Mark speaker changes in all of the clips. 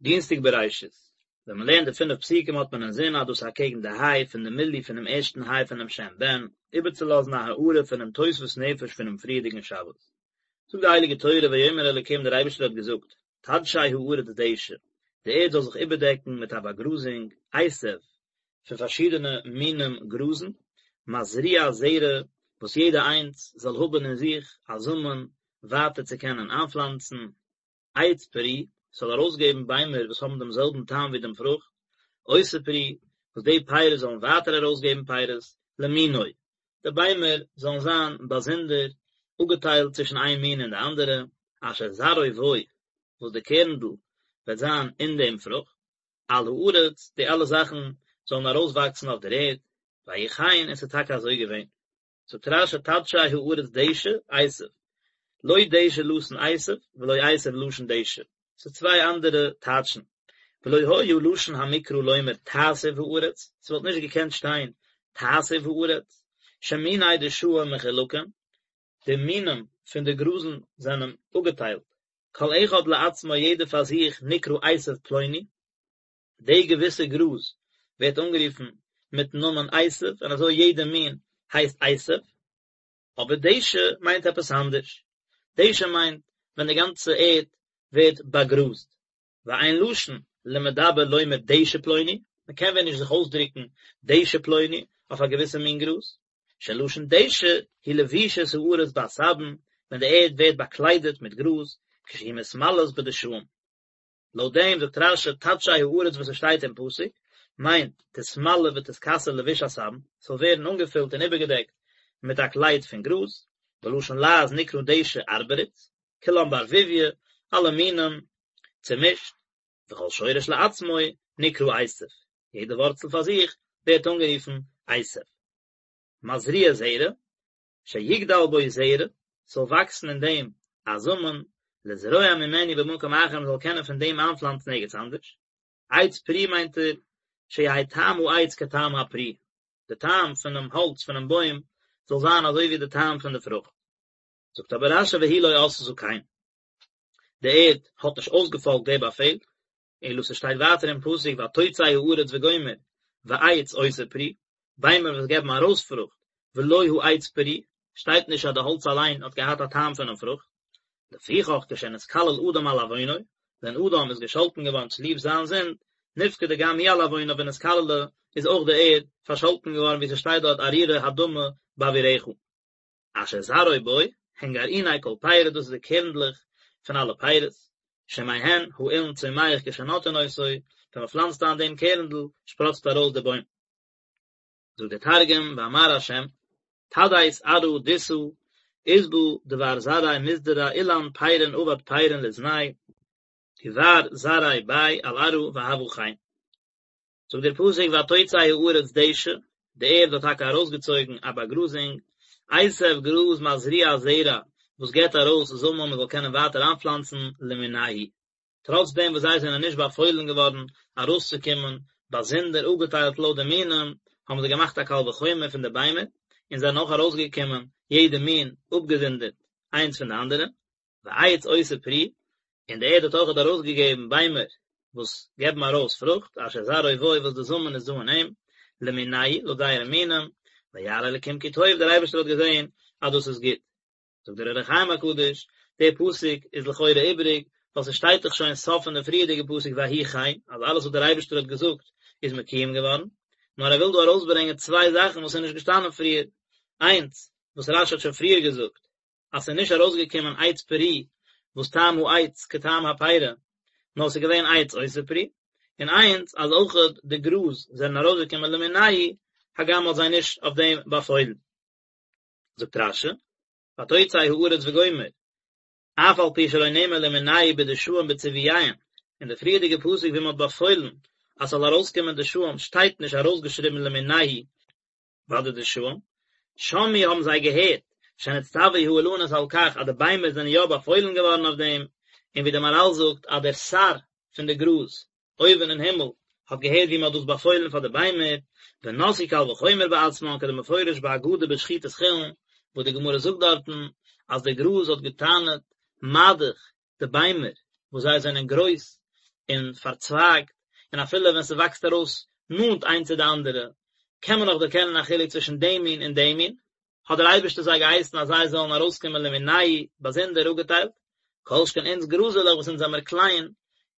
Speaker 1: דינסטאג בראשית, ווען מען לערנט די פינף פסוקים האט מען אינזין אז דאס איז אקעגן די היי פון די מילוי פונעם ערשטן היי פונעם שם בן, איבערצולאזן א הארה פונעם תוספות נפש פונעם פריערדיגן שבת. זאגט די הייליגע תורה ויאמר אלוקים דער אייבערשטער האט געזאגט, תדשא הארץ דשא, די ערד זאל זיך איבערדעקן מיט א באגראזונג, עשב, פון פארשידענע מינים גראזן, מזריע זרע, וואס יעדע איינס זאל האבן אין זיך א זאמען ווייטער צו קענען איינפלאנצן, עץ פרי, ס'זאל ארויסגעבן ביימער וואס האבן דעם זעלבן טעם ווי דעם פרוכט, עושה פרי, וואס די פירות זאלן ווייטער ארויסגעבן פירות, למינו, די ביימער זאלן זיין באזונדער, אפגעטיילט צווישן איין מין און די אנדערע, אשר זרעו בו, וואס די קערנדל וועט זיין אין דעם פרוכט, על הארץ, די אלע זאכן זאלן ארויסוואקסן אויף דער ערד, ויהי כן, און ס'איז טאקע אזוי געווען. זאגט רש"י תדשא הארץ דשא עשב, לא דשא לשון עשב ולא עשב לשון דשא, ס'איז צוויי אנדערע טייטשן, ולא היה לשון המקרא לומר תעשב הארץ, ס'וואלט נישט געקענט שטיין תעשב הארץ, שמיני דשאים מחולקים, די מינים פון די גראזן זענען אפגעטיילט, כל אחד לעצמו יעדער פאר זיך נקרא עשב פלוני, די געוויסע גראז ווערט אנגערופן מיטן נאמען עשב און אזוי יעדע מין הייסט עשב, אבער דשא מיינט עפעס אנדערש, דשא מיינט ווען די גאנצע ערד ווערט באגראזט, ואין לשון למדבר לומר דשא פלוני, מען קען ווען נישט זיך אויסדרוקן דשא פלוני אויף א געוויסע מין גראז, שלשון דשא היא לבישת הארץ בעשבים, ווען די ערד ווערט באקליידעט מיט גראז, כשהיא מתמלאת בדשאים. לויט דעם זאגט רש"י תדשא הארץ וואס עס שטייט אין פסוק מיינט תתמלא ותתכסה לבוש עשבים, ס'זאל ווערן אנגעפילט און איבערגעדעקט מיט א קלייד פון גראז, בלשון לעז נקרא דשא ארבריץ, כולם בערבוביא, אלע מינים צומישט, וכל שורש לעצמו נקרא עשב, יעדע ווארצל פאר זיך ווערט אנגערופן עשב. מזריע זרע, שיגדל בו זרע, ס'זאל וואקסן אין דעם א זאמען, לזרוע ממנו במקום אחר מ'זאל קענען פון דעם איינפלאנצן ערגעץ אנדערש. עץ פרי מיינט ער, שיהא טעם העץ כטעם הפרי, די טעם פונעם האלץ פונעם בוים זאל זיין אזוי ווי די טעם פון די פרוכט. זאגט אבער רש"י והיא לא עשתה כן. די ערד האט נישט אויסגעפאלגט די באפעל, אלא ס'שטייט ווייטער אין פסוק ותוצא הארץ וגומר ועץ עושה פרי, ביימער וואס געבן ארויס פרוכט, ולא העץ פרי, שטייט נישט אז די האלץ אליין האט געהאט א טעם פונעם פרוכט. לפיכך כשנתקלל אדם על עוונו, ווען אדם איז געשאלטן געווארן צוליב זיין זינד, נפקדה גם היא על עוונה ונתקללה, איז אויך די ערד פארשאלטן געווארן ווי ס'שטייט דארט ארורה האדמה בעבורך. אשר זרעו בו, הן גרעיני כל פרי, דאס איז די קערנדלעך פון אלע פירות, שמהן האילן צומח כשנוטעין אותו, ווען מען פלאנצט איין דעם קערנדל, שפראצט ארויס דער בוים. זאגט דער תרגום, ואמר ה', תדית ארעא דיסא, אסבא דבר זרעיה מזדרע אילן פריין עבד פריין לזניה, דבר זרעיה ביה על ארעא והוה כן. זאגט דער פסוק ותוצא הארץ דשא, די ערד האט טאקע ארויסגעצויגן א באגראזונג, עשב גראז מזריע זרע, וואס געבט ארויס זאמען מען זאל קענען ווייטער איינפלאנצן למינהו, טראץ דעם וואס זיי זענען נישט באפוילן געווארן ארויסצוקומען באזונדער אפגעטיילט לויט די מינים, האבן זיי געמאכט א קל וחומר פון די ביימער, און זענען אויך ארויסגעקומען יעדע מין אפגעזונדערט איינס פון די אנדערע. ועץ עושה פרי, און די ערד האט אויכעט ארויסגעגעבן ביימער וואס געבן ארויס פרוכט, אשר זרעו בו וואס די זאמען איז דא אין אים, למינהו, לויט זייערע מינים, וירא אלקים כי טוב, דער אייבערשטער האט געזען אז דאס איז גוט. זאגט דער אור החיים הקדוש, דער פסוק איז לכאורה איבעריג, ווייל ס'שטייט דאך שוין סוף פון די פריערדיגע פסוק ויהי כן, אז אלעס וואס דער אייבערשטער האט געזאגט איז מקויים געווארן, נאר ער וויל דא ארויסברענגען צוויי זאכן וואס איז נישט געשטאנען פריער, איינס, וואס רש"י האט שוין פריער געזאגט, אז ס'איז נישט ארויסגעקומען עץ פרי וואס טעם העץ כטעם הפרי, נאר ס'איז געווען עץ עושה פרי, און איינס אז אויכעט די גראז זענען ארויסגעקומען למינהו, הגם מ'האט זיי נישט אויף דעם באפוילן. זאגט רש"י, ותוצא הארץ וגומר, אף על פי שלא נאמר למינהו בדשאים בציווייהם, אין די פריערדיגע פסוק ווי מ'האט באפוילן אז ס'זאל ארויסקומען דשאים שטייט נישט ארויסגעשריבן למינהו, ביי די דשאים, שמעו האבן זיי געהערט, שנצטוו האילנות על כך אז די ביימער זענען יא באפוילן געווארן אויף דעם, און ווי דער מהר"ל זאגט אז דער שר פון די גראז אויבן אין הימל האט געהערט ווי מען האט דאס באפוילן פאר די ביימער, ונשאו קל וחומר בעצמן כדמפורש באגדה בשחיטת חולין, וואס די גמרא זאגט דארטן אז די גראז האט געטענה'ט מה דאך די ביימער וואס זיי זענען גרויס. און פארצווייגט, און אפילו ווען ס'וואקסט ארויס נאנט איינס צו די אנדערע, קען מען נאך דערקענען א חילוק צווישן דעם מין און דעם מין, האט דער אייבערשטער זיי געהייסן אז זיי זאלן ארויסקומען למינייהו באזונדער אפגעטיילט, כל שכן אונז גראזעלעך וואס אונז זעמער קליין,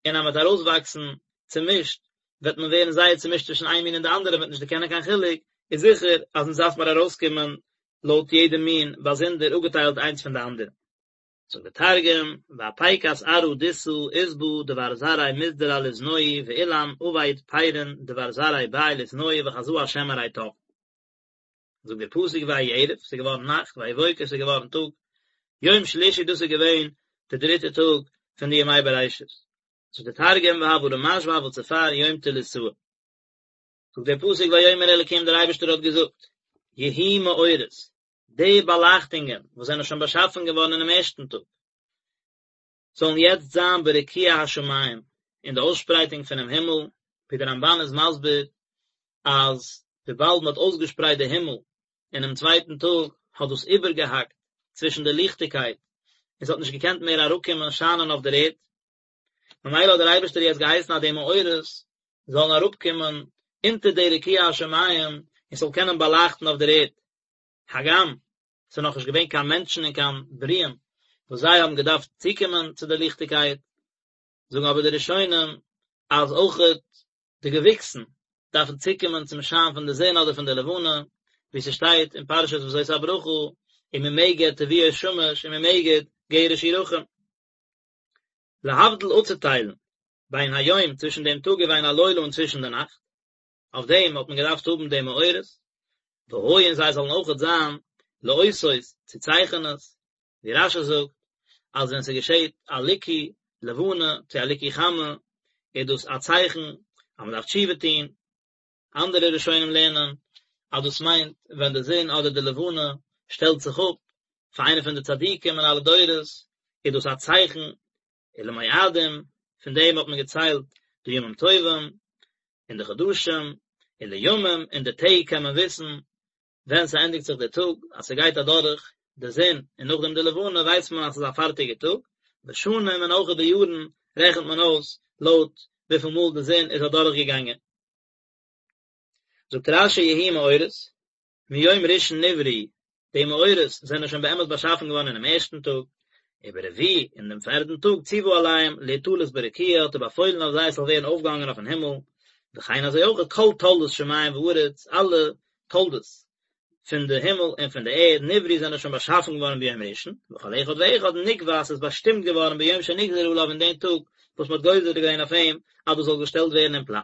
Speaker 1: און אז מ'וועט ארויסוואקסן צומישט, וועט מען ווערן זייער צומישט צווישן איין מין און די אנדערע, מ'וועט נישט דערקענען קיין חילוק, איז זיכער אז אונז דארף מיר ארויסקומען לויט יעדע מין באזונדער אפגעטיילט איינס פון די אנדערע. זאגט דער תרגום, ואפיקת ארעא דכסא עסבא דבר זרעיה מסדר על אזנוהי ואילן עביד פירין דבר זרעיה בי לאתנוהי וחזא השם ארי טב. זאגט דער פסוק ויהי ערב, ס'איז געווארן נאכט, ויהי בוקר, ס'איז געווארן טאג, יום שלישי דאס איז געווען די דריטע טאג פון די ימי בראשית. זאגט דער תרגום והוה רמש והוה צפר יום תליתאה. זאגט דער פסוק ויאמר אלקים דער אייבערשטער האט געזאגט, יהיו מאורות, די באלייכטונגען וואס זענען שוין באשאפן געווארן אינעם ערשטן טאג, זאלן יעצט זיין ברקיע השמים, אין די אויסשפרייטונג פונעם הימל, ווי דער רמבן איז מסביר אז וויבאלד מען האט אויסגעשפרייט די הימל אינעם צווייטן טאג, האט דאס איבערגעהאקט צווישן די ליכטיגקייט, און ס'האט נישט געקענט מער אראפקומען שיינען אויף דער ערד, ממילא האט דער אייבערשטער יעצט געהייסן אז די מאורות זאלן אראפקומען אונטער די רקיע השמים און ס'זאל קענען באלייכטן אויף דער ערד, הגם ס'איז נאכנישט געווען קיין מענטשן און קיין ברואים וואס זיי האבן געדארפט צוקומען צו די ליכטיגקייט, זאגן אבער די ראשונים אז אויכעט די געוויקסן דארפן צוקומען צום שיין פון די זון אדער פון די לבנה, ווי ס'שטייט אין פרשת וזאת הברכה, וממגד תבואות שמש וממגד גרש ירחים. להבדיל אפצוטיילן בין היום צווישן דעם טאג ובין הלילה און צווישן די נאכט, אויף דעם האט מען געדארפט האבן די מאורות, והיו און זיי זאלן אויכעט זיין לאותות צו צייכענעס, ווי רשי זאגט אז ווען ס'געשעט א ליקוי לבנה צו א ליקוי חמה איז דאס א צייכן אז מ'דארף תשובה טון, אנדערע ראשונים לערנען אז דאס מיינט ווען די זון אדער די לבנה שטעלט זיך אפ פאר איינע פון די צדיקים אין אלע דורות איז דאס א צייכן ולמועדים, פון דעם האט מען געציילט די ימים טובים און די חדשים, ולימים, און די טעג קען מען וויסן ווען ס'ענדיגט זיך דער טאג, אז ס'גייט אדורך די זון און נאכדעם די לבנה ווייסט מען אז ס'איז א פארטיגע טאג, ושנים און אויך די יארן רעכנט מען אויס לויט וויפיל מאל די זון איז אדורך געגאנגען. זאגט רשי יהיו מאורות, מיום ראשון נבראו, די מאורות זענען שוין באמת באשאפן געווארן אינעם ערשטן טאג, וברביעי, אין דעם פערדן טאג ציוה עליהם להיתלות ברקיע האט ער באפוילן אויף זיי עס זאל ווערן אויפגעהאנגען אויפן הימל, וכן אזוי אויך כל תולדות שמים וארץ, אלע תולדות פון די הימל און פון די ערד, נבראו זענען שוין באשאפן געווארן ביום ראשון, וכל אחד ואחד נקבע עס איז באשטימט געווארן ביום שנגזר עליו אין דעם טאג וואס מען האט גוזר געווען אויף אים אז דאס זאל געשטעלט ווערן אין פלאץ.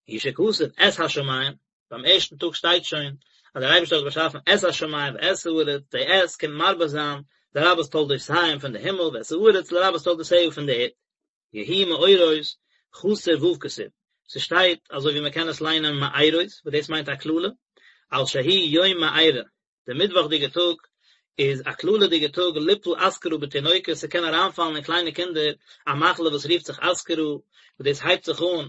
Speaker 1: הוא שכתוב את השמים, ביים ערשטן טאג שטייט שוין אז דער אייבערשטער האט באשאפן את השמים ואת הארץ, די את קומט מרבה זיין לרבות תולדותיהם פון די הימל ואת הארץ לרבות תולדותיה פון די ערד. יהיו מאורות חסר ו' כתיב, ס'שטייט אזוי ווי מ'קען עס ליינען מארות וואס דאס מיינט א קללה, על שהוא יום מארה, די מיטוואכדיגע טאג איז א קללה'דיגע טאג ליפול אסכרה בתינוקות, ס'קען אריינפאלן אין קליינע קינדער א מחלה וואס רופט זיך אסכרה, וואס דאס הייבט זיך אן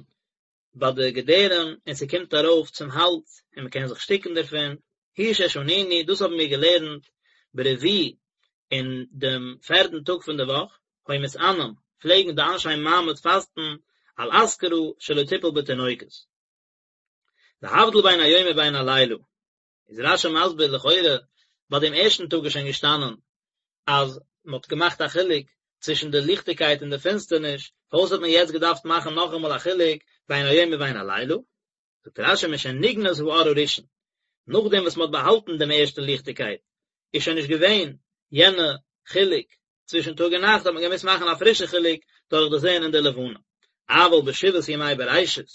Speaker 1: ביי די געדערים און ס'קומט ארויף צום האלז און מ'קען זיך שטיקן דערפון, הוא ששנינו, דאס האבן מיר געלערנט ברביעי אין דעם פערדן טאג פון די וואך, היו מתענין, פלעגן די אנשי מעמד פאסטן על אסכרה שלא תיפול בתינוקות. להבדיל בין היום ובין הלילה, איז רשי מסביר לכאורה ביי דעם ערשטן טאג איז שוין געשטאנען אז מען האט געמאכט א חילוק צווישן די ליכטיגקייט און די פינסטערניש, פארוואס האט מען יעצט געדארפט מאכן נאכאמאל א חילוק בין היום ובין הלילה? זאגט רשי משנגנז האור הראשון, נאכדעם וואס מען האט באהאלטן דעם ערשטן ליכטיגקייט, איז שוין נישט געווען יענע חילוק צווישן טאג און נאכט, האט מען געמוזט מאכן א פרישע חילוק דורך די זון און די לבנה. אבל בשבעת ימי בראשית,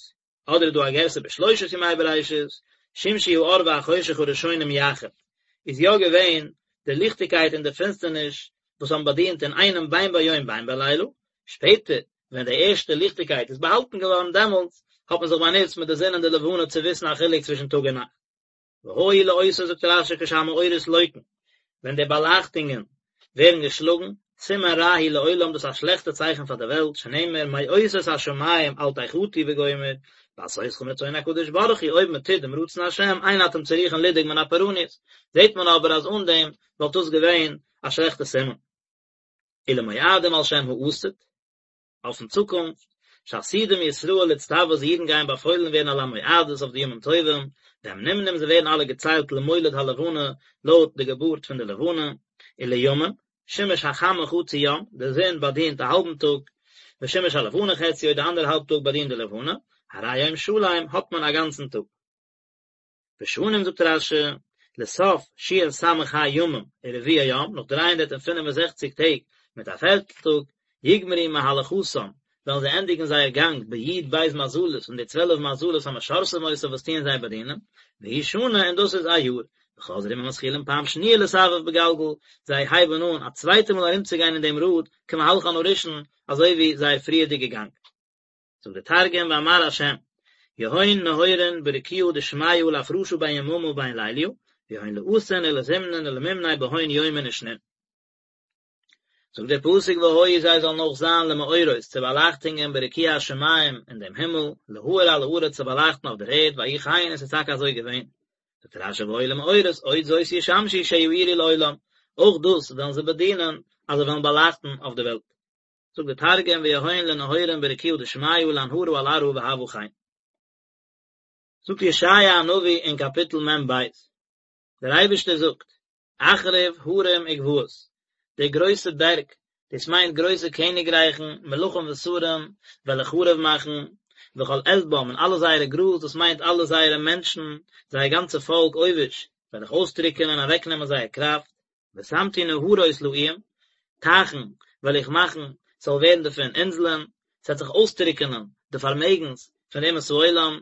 Speaker 1: אדער איז דא א גירסא בשלושת ימי בראשית, שמשו האור והחושך הראשונים יחד, איז יא געווען די ליכטיגקייט און די פינסטערניש וואס האבן באדינט אינאיינעם בין ביום בין בלילה, שפעטער ווען די ערשטע ליכטיגקייט איז באהאלטן געווארן דעמאלטס האט מען זיך באנוצט מיט די זון און די לבנה צו וויסן א חילוק צווישן טאג און נאכט. והיו לאותות זאגט רשי כשהמאורות לוקין, ווען די באלייכטונגען ווערן געשלאגן, סימן רע הוא לעולם דאס איז א שלעכטע צייכן פאר די וועלט, שנאמר מאותות השמים אל תחתו וגומר, בעשותכם רצון הקדוש ברוך הוא אויב מען טוט דעם רצון השם אין אתם צריכין לדאוג מן הפורענות, זעט מען אבער אז אן דעם וואלט דאס געווען א שלעכטע סימן. ולמועדים על שם העתיד, אויפן צוקונפט, שעתידים ישראל להצטוות די אידן גייען באפוילן ווערן על המועדות אויף די ימים טובים, והם נמנים זיי ווערן אלע געציילט למולד הלבנה לויט די געבורט פון די לבנה, ולימים, שימוש החמה חצי יום, די זון באדינט א האלבן טאג, ושימוש הלבנה חציו די אנדערע האלב טאג באדינט די לבנה, הרי יום שלם האט מען א גאנצן טאג. ושנים זאגט רש"י, לסוף שס"ה ימים ורביע יום, נאך 365 טעג מיט א פערטל טאג, יגמרו מהלכתם, וועלן זיי ענדיגן זייער גאנג בי"ב מזלות אין די צוועלף מזלות המשרתים אותם וואס טוען זיי באדינען, והיא שנה און דאס איז א יאר, וחוזרים ומתחילים פעם שניה לסבב בגלגל, זיי הייבן אן א צווייטע מאל ארומצוגיין אין דעם ראד כמהלכן הראשון, אזוי ווי זייער פריערדיגע גאנג. זאגט דער תרגום ואמר ה' יהון נהורין ברקיעא דשמיא לאפרשא בין יממא ובין ליליא, ויהון לעשין ולזמנין ולמימני בהון יומין ושנין. זאגט דער פסוק והיו זיי זאלן אויך זיין למאורות צו באלייכטונגען ברקיע השמים אין דעם הימל, להאיר על הארץ צו באלייכטן אויף דער ערד, ויהי כן און עס איז טאקע אזוי געווען. זאגט רש"י והיו למאורות עוד זאת ישמשו שיאירו לעולם, אויך דאס וועלן זיי באדינען אז זיי וועלן באלייכטן אויף דער וועלט. זאגט דער תרגום ויהון לנהורין ברקיעא דשמיא לאנהרא על ארעא והוה כן. זאגט ישעיה הנביא אין קאפיטל מ"ב, דער אייבערשטער זאגט, אחריב הרים וגבעות, די גרויסע בערג, דאס מיינט גרויסע קעניגרייכן, מלכים ושרים, וועל איך חרוב מאכן, וכל עשבם און אלע זייערע גראז, דאס מיינט אלע זייערע מענטשן, זייער גאנצע פאלק עובש, וועל איך אויסטרוקענען און אוועקנעמען זייער קראפט, ושמתי נהרות לאיים, טייכן וועל איך מאכן ס'זאל ווערן דערפון אינזלען, ס'וועט זיך אויסטרוקענען די פארמעגנס פון די אומות העולם,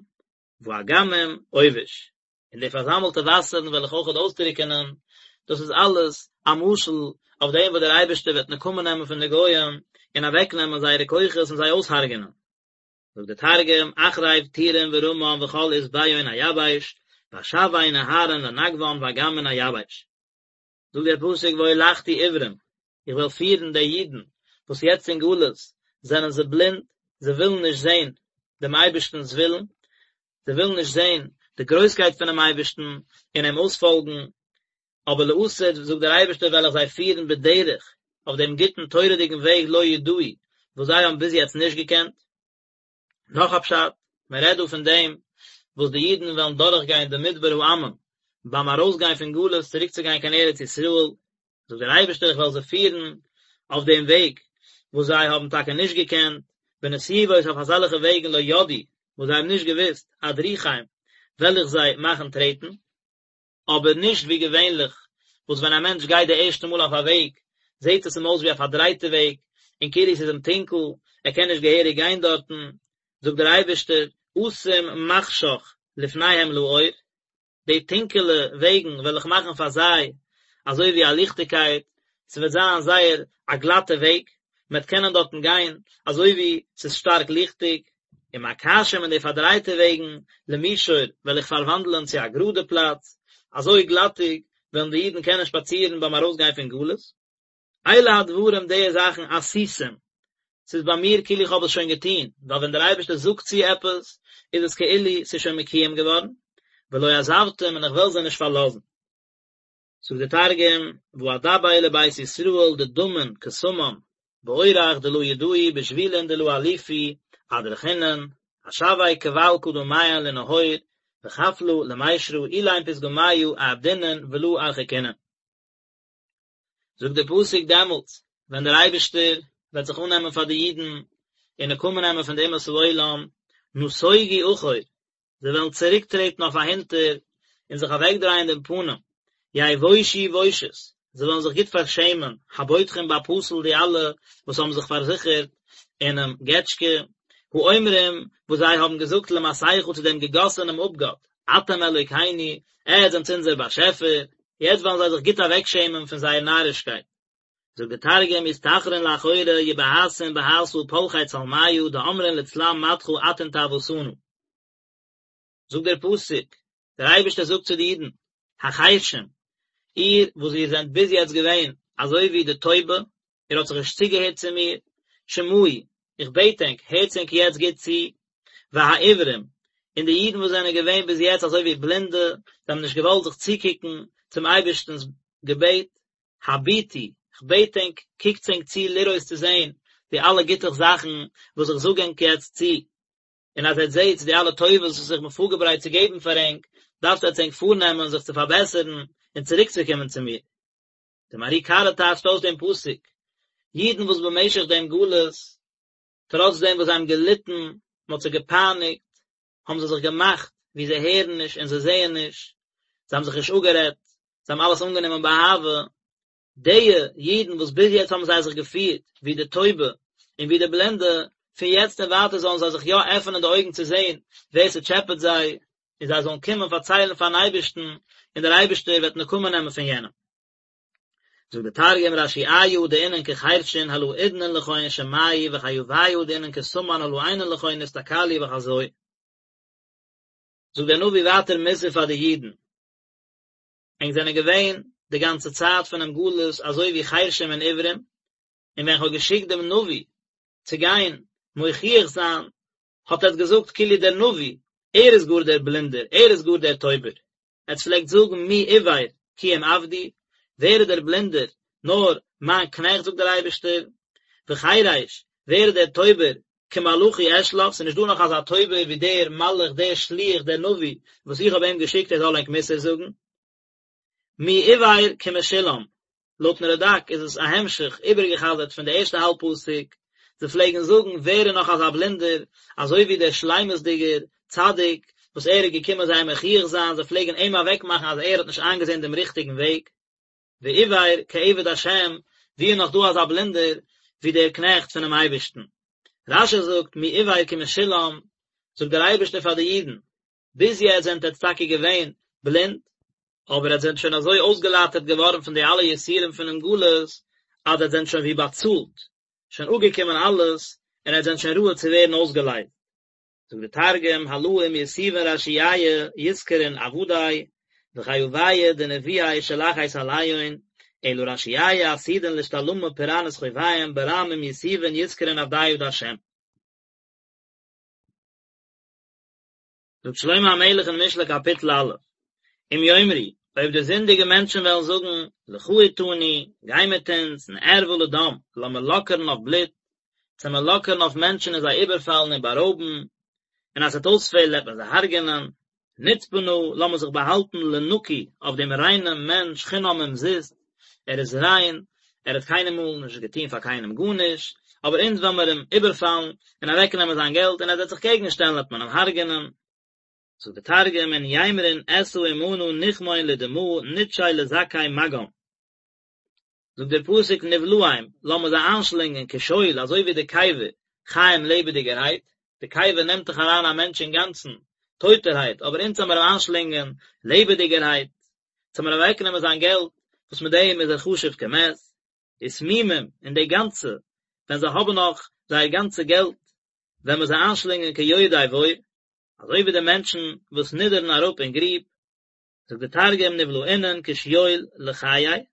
Speaker 1: ואגמים עובש, און די פארזאמלטע וואסערן וועל איך אויכעט אויסטרוקענען, דאס איז אלעס א משל אויף דעם וואס דער אייבערשטער וועט נקמה נעמען פון די גויים און אוועקנעמען זייערע כוחות און זיי אויסהרג'ענען. זאגט דער תרגום, אחריב טורין ורמן וכל עשביהון אייבש, ואשוי נהרין לנגוון ואגמין אייבש. זאגט דער פסוק והולכתי עורים, איך וועל פירן די אידן וואס יעצט אין גלות זענען זיי בלינד, זיי ווילן נישט זען דעם אייבערשטנ'ס ווילן, זיי ווילן נישט זען די גרויסקייט פונעם אייבערשטן און אים אויספאלגן, אבער לעתיד, זאגט דער אייבערשטער, וועל איך זיי פירן בדרך, אויף דעם גוטן תורה'דיגן וועג לא ידעו, וואס זיי האבן ביז יעצט נישט געקענט. נאך א פשט, מען רעדט דא פון דעם וואס די אידן וועלן דורכגיין די מדבר העמים ביים ארויסגיין פון גלות צוריקצוגיין קיין ארץ ישראל, זאגט דער אייבערשטער איך וועל זיי פירן אויף דעם וועג וואס זיי האבן טאקע נישט געקענט, בנתיבות אויף אזעלכע וועגן לא ידעו, וואס זיי האבן נישט געוואוסט, אדריכם, וועל איך זיי מאכן טרעטן. אבער נישט ווי געווענליך וואס ווען א מענטש גייט די ערשטע מאל אויף א וועג זעט עס אים אויס ווי א פארדרייטע וועג און כאילו עס איז אים טונקל, ער קען נישט געהעריג גיין דארטן, זאגט דער אייבערשטער, אשים מחשך לפניהם לאור, די טונקעלע וועגן וועל איך מאכן פאר זיי אזוי ווי א ליכטיגקייט, ס'וועט זיין זייער א גלאטע וועג, מען וועט קענען דארטן גיין אזוי ווי ס'איז שטארק ליכטיג, ומקשים און די פארדרייטע וועגן למישור וועל איך פארוואנדלען צו א גראדע פלאץ, אזוי גלאטיג וועלן די אידן קענען שפאצירן ביים ארויסגיין פון גלות. אלה הדברים די זאכן עשיתים, ס'איז ביי מיר כאילו איך האב עס שוין געטון, ווייל ווען דער אייבערשטער זאגט צו עפעס, איז עס כאילו ס'איז שוין מקויים געווארן, ולא עזבתים און איך וועל זיי נישט פארלאזן. זאגט דער תרגום, ואדבר לבית ישראל דדמין כסמם, באורח דלא ידעו בשבילין דלא אליפו אדרכינון, אשווי כבל קדמיהון לנהור, וחפלא למישרא אילין פתגמיא אעבדינון ולא ארחיקינון. זאגט דער פסוק דעמאלטס ווען דער אייבערשטער וועט זיך אננעמען פאר די אידן און נקמה נעמען פון די אומות העולם, נסוגו אחור, זיי וועלן צוריקטרעטן אויף אהינטער און זיך אוועקדרייען דעם פנים, יבושו בושת, זיי וועלן זיך גוט פארשעמען, הבוטחים בפסל די אלע וואס האבן זיך פארזיכערט אינעם געטשקע, האומרים וואס זיי האבן געזאגט למסכה צו דעם געגאסענעם אפגאט, אתם אלוקינו, עטס זענטס אונזער באשעפער, יעצט וועלן זיי זיך גוט אוועקשעמען פון זייער נארישקייט. זאגט דער תרגום יסתחרון לאחורא יבהתון בהתא פלחי צלמיא דאמרין לצלם מדכא אתון טעותנא. זאגט דער פסוק, דער אייבערשטער זאגט צו די אידן, החרשים, איר וואס איר זענט ביז יעצט געווען אזוי ווי די טויבע, איר האט זיך נישט צוגעהערט צו מיר, שמעו, איך בעט ענק, הערטס ענק יעצט גוט צו, והעיוורים, און די אידן וואס זענען געווען ביז יעצט אזוי ווי בלינדע, זיי האבן נישט געוואלט זיך צוקוקן צום אייבערשטנ'ס געבעט, הביטו, כ'בעט ענק, קוקטס ענק צו לראות צו זען. די אלע גוטע זאכן וואס איך זאג ענק יעצט צו, און אז עטס זעטס די אלע טובות וואס איך בין פארגעברייט צו געבן פאר ענק, דארפט עטס ענק פארנעמען זיך צו פארבעסערן און צוריקצוקומען צו מיר. דער מהר"י קרא טייטשט אויס דעם פסוק, אידן וואס במשך דעם גלות, טראץ דעם וואס זיי האבן געליטן, מען האט זיי געפייניגט, האבן זיי זיך געמאכט ווי זיי הערן נישט און זיי זעען נישט, זיי האבן זיך נישט אפגערעדט, זיי האבן אלעס אנגענומען באהבה, די אידן וואס ביז יעצט האבן זיי זיך געפירט ווי די טויבע און ווי די בלינדע, פון יעצט און ווייטער זאלן זיי זיך יא עפענען די אויגן צו זען ווער ס'טשעפעט זיי, און זיי זאלן קומען פארציילן פארן אייבערשטן, און דער אייבערשטער וועט נקמה נעמען פון יענעם. זאגט דער תרגום רשיעיא דאינון כחרשין הלא אודנין לכון שמעו וחייביא דאינון כסמן הלא עינין לכון אסתכלו וחזו. זאגט דער נביא ווייטער מוסר פאר די אידן, ענק זענען געווען די גאנצע צייט פונעם גלות אזוי ווי חרשים און עיוורים, און ווען כ'האב געשיקט דעם נביא צו גיין מוכיח זיין, האט עטס געזאגט כאילו דער נביא, ער איז גאר דער בלינדער, ער איז גאר דער טויבער. עטס פלעגט זאגן מי עור כי אם עבדי, ווער איז דער בלינדער, נאר מיין קנעכט זאגט דער אייבערשטער, וחרש, ווער איז דער טויבער, כמלאכי אשלח, ס'איז נישט דא נאך אזא טויבער ווי דער מלאך, דער שליח, דער נביא, וואס איך האב אים געשיקט ער זאל ענק מוסר זאגן. מי עור כמשולם, לויטן רד"ק איז עס א המשך, איבערגעחזרט פון די ערשטע האלב פסוק, זיי פלעגן זאגן ווער איז נאך אזא בלינדער, אזוי ווי דער שלימות'דיגער צדיק וואס ער איז געקומען זיי מוכיח זיין, זיי פלעגן אים אוועקמאכן אז ער האט נישט איינגעזען דעם ריכטיגן וועג. ועור כעבד השם, ווי איז נאך דא אזא בלינדער ווי דער קנעכט פונעם אייבערשטן? רש"י זאגט מי עור כמשולם, זאגט דער אייבערשטער פאר די אידן, ביז יעצט זענט עטץ טאקע געווען בלינד, אבער עטץ זענט שוין אזוי אויסגעלייטערט געווארן פון די אלע יסורים פונעם גלות, אז עטץ זענט שוין ווי באצאלט, שוין אפגעקומען אלעס, און עטץ זענט שוין ראוי צו ווערן אויסגעלייזט. זאגט דער תרגום, הלא אם יתיבין רשיעיא יתקרון עבדי, וחייביא דנביאי שלחית עליהון, אלא רשיעיא עתידין לאשתלמא פורענות חוביהון ברם אם יתיבין יתקרון עבדיא דהשם. זאגט שלמה המלך אין משלי קאפיטל א', אם יאמרו, אויב די זינדיגע מענטשן וועלן זאגן, לכה אתנו, גיי מיט אונז, נערבה לדם, לאמיר לאקערן אויף בלוט, צו מיר לאקערן אויף מענטשן און זיי איבערפאלן און בארויבן, און אז ס'וועט אויספעלן וועט מען זיי הרג'ענען, נצפה נא, לאמיר זיך באהאלטן לנקי, אויף דעם ריינעם מענטש, חינם אומזיסט, ער איז ריין, ער האט קיינמאל נישט געטון פאר קיינעם גארנישט, אבער אונז וועלן מיר אים איבערפאלן און אוועקנעמען זיין געלט, און אז ער וועט זיך קעגן שטעלן וועט מען אים הרג'ענען. זאגט דער תרגום, אין יימרון אתא עמנא נחמון לדמא נטשי לזכי מגם. זאגט דער פסוק נבלעם, לאמיר זיי איינשלינגען כשאול, אזוי ווי די קבר, חיים לעבעדיגערהייט, די קבר נעמט דאך אריין א מענטש אינגאנצן, טויטערהייט, אבער אונז וועלן מיר אים איינשלינגען לעבעדיגערהייט, צו מיר אוועקנעמען זיין געלט, וואס מיט דעם איז ער חשוב כמת, ותמימים, און די גאנצע, ווען זיי האבן נאך זייער גאנצע געלט, וועלן מיר זיי איינשלינגען כיורדי בור, אזוי ווי די מענטשן וואס נידערן אראפ אין גריב, זאגט די תרגום נבלעינון כשאול לחיי,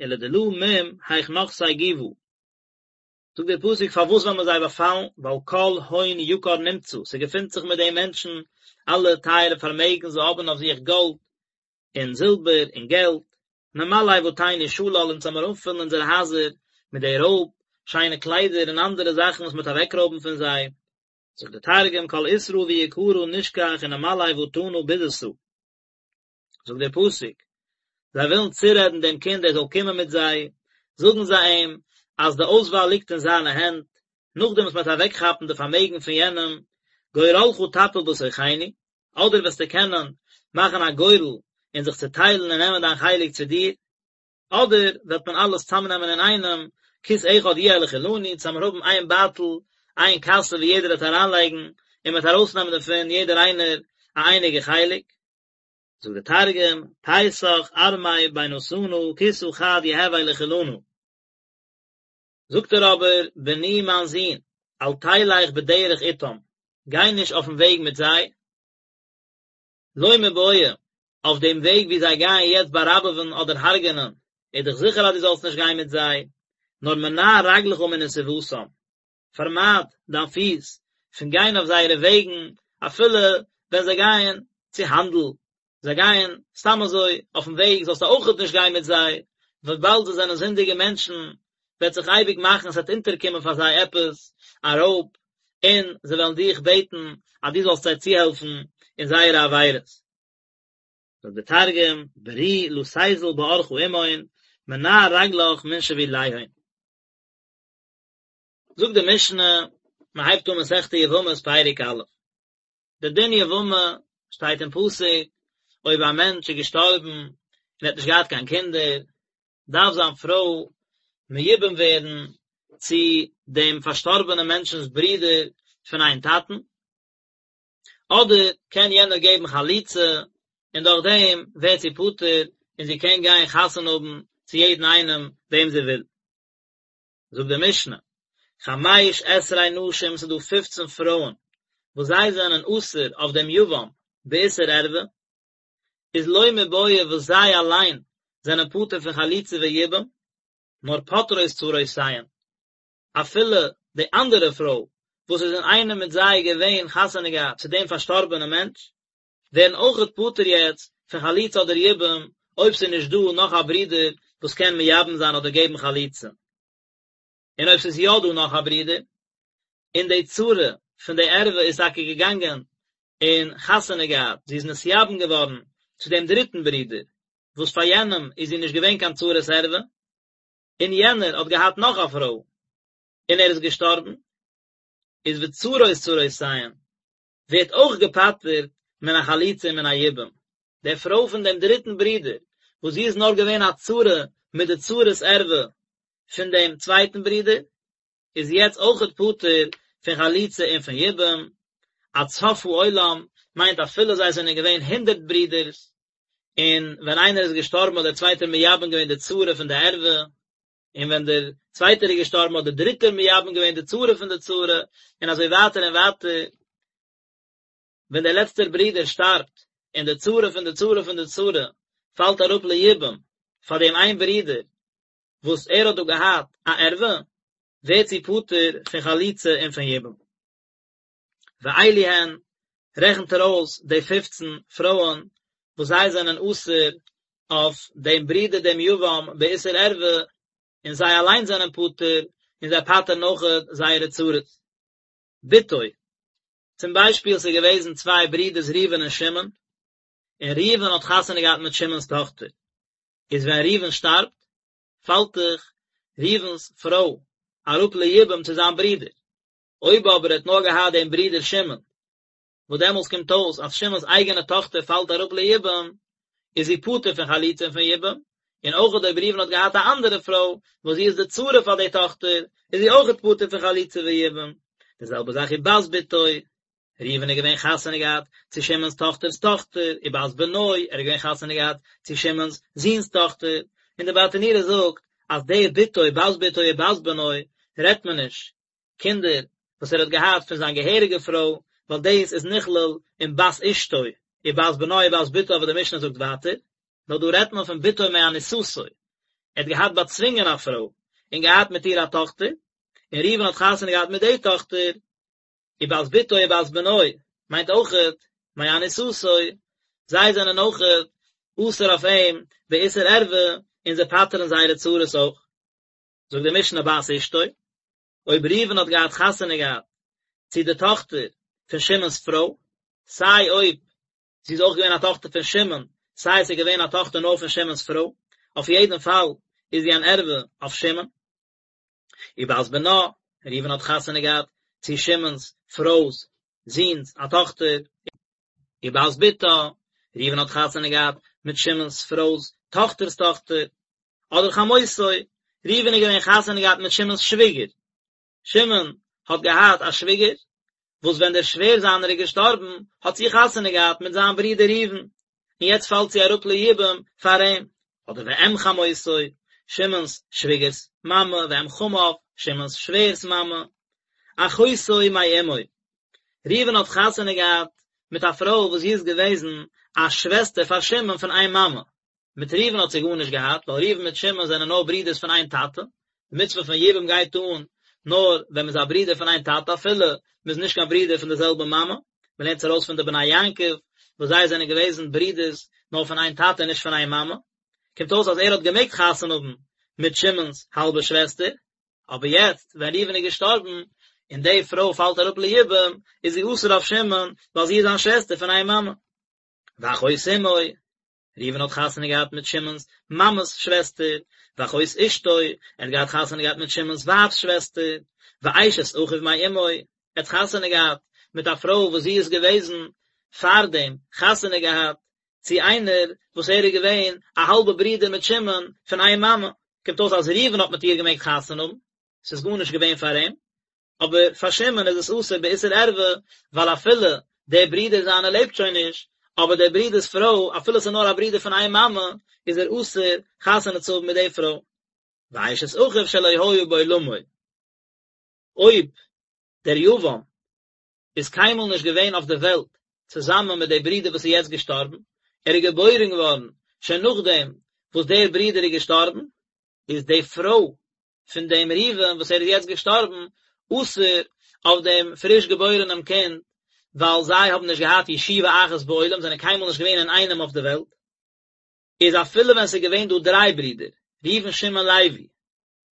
Speaker 1: ולדלא מום היך נחתי גובא. זאגט דער פסוק פארוואס וועלן מיר זיי באפאלן, ווייל כל הון יקר נמצא, ס'געפינט זיך מיט די מענטשן אלע טייערע פארמעגן, זיי האבן אויף זיך גאלד און זילבער און געלט, נמלא בתינו שלל, אונז וועלן מיר אנפילן אונזערע הייזער מיט די רויב, שיינע קליידער און אנדערע זאכן וואס מ'וועט אוועקרויבן פון זיי. זאגט דער תרגום כל עותרא ויקרא נשכח ונמלי בטנא בזתא. זאגט דער פסוק, זיי ווילן צורעדן דעם קינד ער זאל קומען מיט זיי, זאגן זיי אים אז די אויסוואל ליגט אין זיינע הענט, נאכדעם וואס מען וועט אוועקכאפן די פארמעגן פון יענעם, גורלך תפיל בתוכנו, אדער וועסטו קענען מאכן א גורל און זיך צוטיילן און נעמען דיין חלק צו דיר, אדער וועט מען אלעס צאמנעמען אינאיינעם, כיס אחד יהיה לכולנו, צו מיר האבן איין בייטל, איין קאסע ווי יעדער וועט אריינלייגן, און מען וועט ארויסנעמען דערפון יעדער איינער א אייניגע חלק. זאגט דער תרגום, פייסך ארמי בינתנא כיסא חד יהוי לכולנא. זאגט ער אבער, בני מיין זון, אל תלך בדרך אתם, גיי נישט אויפן וועג מיט זיי, לא מיבעיא, אויף דעם וועג ווי זיי גייען יעצט באראבעווען אדער הרג'ענען, איז דאך זיכער אז דו זאלסט נישט גיין מיט זיי, נאר מנע רגלך מנתיבתם, פארמייד דיין פיס פון גיין אויף זייערע וועגן, אפילו ווען זיי גייען צו האנדל, זיי גייען סתם אזוי אויפן וועג זאלסטו אויכעט נישט גיין מיט זיי, וויבאלד זיי זענען זינדיגע מענטשן, וועט זיך אייביג מאכן עס וועט אונטערקומען פאר זיי עפעס א רויב, און זיי וועלן דיך בעטן אז דו זאלסט זיי צוהעלפן אין זייערע עבירות. זאגט דער תרגום, ברי לא תיזל באורחא עמהון, מנע רגלך מן שביליהון. זאגט די משנה, מען הייבט אן מסכת יבמות פרק א', די דין יבמה שטייט אין פסוק, אויב א מענטש איז געשטארבן און ער האט נישט געהאט קיין קינדער, דארף זיין פרוי מיובם ווערן צו דעם פארשטארבענעם מענטשנ'ס ברודער פון איין טאטן, אדער קען יענער געבן חליצה און דורך דעם ווערט זי פטור און זי קען גיין חתונה האבן צו יעדן איינעם וועם זי וויל. זאגט די משנה, חמש עשרה נשים ס'איז דא פופצן פרויען וואס זיי זענען אסור אויף דעם יבם באיסור ערווה, איז לא מיבעיא וואס זיי אליין זענען פטור פון חליצה ויבום, נאר פוטרות צרותיהן, אפילו די אנדערע פרוי וואס איז אינאיינעם מיט זיי געווען חתונה געהאט צו דעם פארשטארבענעם מענטש, ווערן אויכעט פטור יעצט פון חליצה אדער יבום, אויב ס'איז נישט דא נאך א ברודער וואס קען מייבם זיין אדער געבן חליצה. און אויב ס'איז יא דא נאך א ברודער, און די צרה פון די ערווה איז טאקע געגאנגען און חתונה געהאט, זי איז נתייבם געווארן צו דעם דריטן ברודער, וואס פאר יענעם איז זי נישט געווען קיין צרת ערווה, און יענער האט געהאט נאך א פרוי, און ער איז געשטארבן, איז וצרות צרותיהן, ווערט אויך געפטר'ט מן החליצה ומן היבום. די פרוי פון דעם דריטן ברודער, וואס זי איז נאר געווען א צרה מיט די צרת ערווה פון דעם צווייטן ברודער, איז יעצט אויכעט פטור פון חליצה און פון יבום, עד סוף העולם מיינט אפילו זיי זענען געווען הונדערט ברודערס, און ווען איינער איז געשטארבן האט דער צווייטער מייבם געווען די צרה פון די ערווה, און ווען דער צווייטער איז געשטארבן האט דער דריטער מייבם געווען די צרה פון די צרה, און אזוי ווייטער און ווייטער, ווען דער לעצטער ברודער שטארבט, און די צרה פון די צרה פון די צרה פאלט אראפ ליבום פאר דעם איין ברודער וואס ער האט דא געהאט א ערווה, ווערט זי פטור פון חליצה און פון יבום. ואלו הן, רעכנט ער אויס די פופצן פרויען וואס זיי זענען אסור אויף דעם ברודער דעם יבם באיסור ערווה, און זיי אליין זענען פטור, און זיי פטר'ן אויכעט זייערע צרות. בתו, צום ביישפיל ס'איז געוועזן צוויי ברידערס ראובן און שמעון, און ראובן האט חתונה געהאט מיט שמעון'ס טאכטער, איז ווען ראובן שטארבט, פאלט דאך ראובן'ס פרוי אראפ ליבום צו זיין ברודער, אויב אבער ער האט נאר געהאט דעם ברודער שמעון, וואס דעמאלס קומט אויס אז שמעון'ס אייגענע טאכטער פאלט אראפ ליבום, איז זי פטור פון חליצה און פון יבום, און אויך אויב ראובן האט געהאט א אנדערע פרוי, וואס זי איז די צרה פאר די טאכטער, איז זי אויכעט פטור פון חליצה ויבום. די זעלבע זאך ובת בתו, ראובן איז געווען חתונה געהאט צו שמעון'ס טאכטער'ס טאכטער, ובת בנו, ער איז געווען חתונה געהאט צו שמעון'ס זוהן'ס טאכטער, און די ברטנורא זאגט אז די בתו, בת בתו ובת בנו, רעדט מען נישט קינדער וואס ער האט געהאט פון זיין געהעריגע פרוי, ווייל דאס איז נכלל אין בת אשתו, ובת בנו ובת בתו וואס די משנה זאגט ווייטער, נאר דא רעדט מען פון בתו מאנוסתו, ער האט געהאט באצווינגען א פרוי, און געהאט מיט איר א טאכטער, און ראובן האט חתונה געהאט מיט די טאכטער, ובת בתו ובת בנו מיינט אויכעט מאנוסתו, זיי זענען אויכעט אסור אויף אים באיסור ערווה און זיי פטר'ן זייערע צרות אויך. זאגט די משנה בת אשתו, אויב ראובן האט געהאט חתונה געהאט צו די טאכטער פון שמעון'ס פרוי, סיי אויב זי איז אויך געווען א טאכטער פון שמעון, סיי עס איז געווען א טאכטער נאר פון שמעון'ס פרוי, אויף יעדן פאל איז זי אן ערווה אויף שמעון. ובת בנה, ראובן האט חתונה געהאט צו שמעון'ס פרוי'ס זוהן'ס א טאכטער, ובת בתה, ראובן האט חתונה געהאט מיט שמעון'ס פרוי'ס טאכטער'ס טאכטער, אדער חמותו, ראובן איז געווען חתונה געהאט מיט שמעון'ס שוויגער, שמעון האט געהאט א שוויגער, וואס ווען דער שווער זיינער איז געשטארבן, האט זי חתונה געהאט מיט זיין ברודער ראובן, און יעצט פאלט זי אראפ ליבום פאר אים, אדער ואם חמותו, שמעון'ס שוויגער'ס מאמע, ואם חמיו, שמעון'ס שווער'ס מאמע, אחותו מאמו, ראובן האט חתונה געהאט מיט א פרוי וואס זי איז געוועזן א שוועסטער פאר שמעון פון איין מאמע, מיט ראובן האט זי גארנישט געהאט, ווייל ראובן מיט שמעון זענען נאר ברידערס פון איין טאטע, די מצוה פון יבום גייט אן נאר ווען מ'איז א ברודער פון איין טאטע אפילו מ'איז נישט קיין ברודער פון די זעלבע מאמע, מ'לערנט עס ארויס פון די בני יעקב וואס זיי זענען געוועזן ברידערס נאר פון איין טאטע און נישט פון איין מאמע, קומט אויס אז ער האט געמעגט חתונה האבן מיט שמעון'ס האלבע שוועסטער. אבער יעצט ווען ראובן איז געשטארבן, און די פרוי פאלט אראפ ליבום, איז זי אסור אויף שמעון, ווייל זי איז זיין שוועסטער פון איין מאמע. ואחות אמו, ראובן האט חתונה געהאט מיט שמעון'ס מאמע'ס שוועסטער, ואחות אשתו, ער האט געהאט חתונה געהאט מיט שמעון'ס ווייב'ס שוועסטער, ואשת אחיו מאמו, ער האט חתונה געהאט מיט א פרוי וואס זי איז געוועזן פארדעם חתונה געהאט צו איינער וואס ער איז געווען א האלבע ברודער מיט שמעון פון איין מאמע, קומט אויס אז ראובן האט מיט איר געמעגט חתונה האבן, ס'איז גארנישט געווען פאר אים, אבער פאר שמעון איז עס אסור באיסור ערווה, ווייל אפילו דער ברודער זיינער לעבט שוין נישט, אבער דער ברודער'ס פרוי, אפילו עס איז נאר א ברודער פון איין מאמע, איז ער אסור חתונה צו האבן מיט די פרוי. ואשת אחיו שלא היה בעולמו. אויב דער יבם איז קיינמאל נישט געווען אויף דער וועלט צוזאמען מיט דער ברודער וואס איז יעצט געשטארבן, ער איז געבוירן געווארן שוין נאכדעם וואס דער ברודער איז געשטארבן, איז די פרוי פון דעם ראובן וואס ער איז יעצט געשטארבן אסור אויף דעם פריש געבוירענעם קינד, ווייל זיי האבן נישט געהאט ישיבה אחת בעולם, זענען קיינמאל נישט געווען אינאיינעם אויף דער וועלט. איז אפילו ווען ס'איז געווען דא דריי ברידער, ראובן שמעון לוי,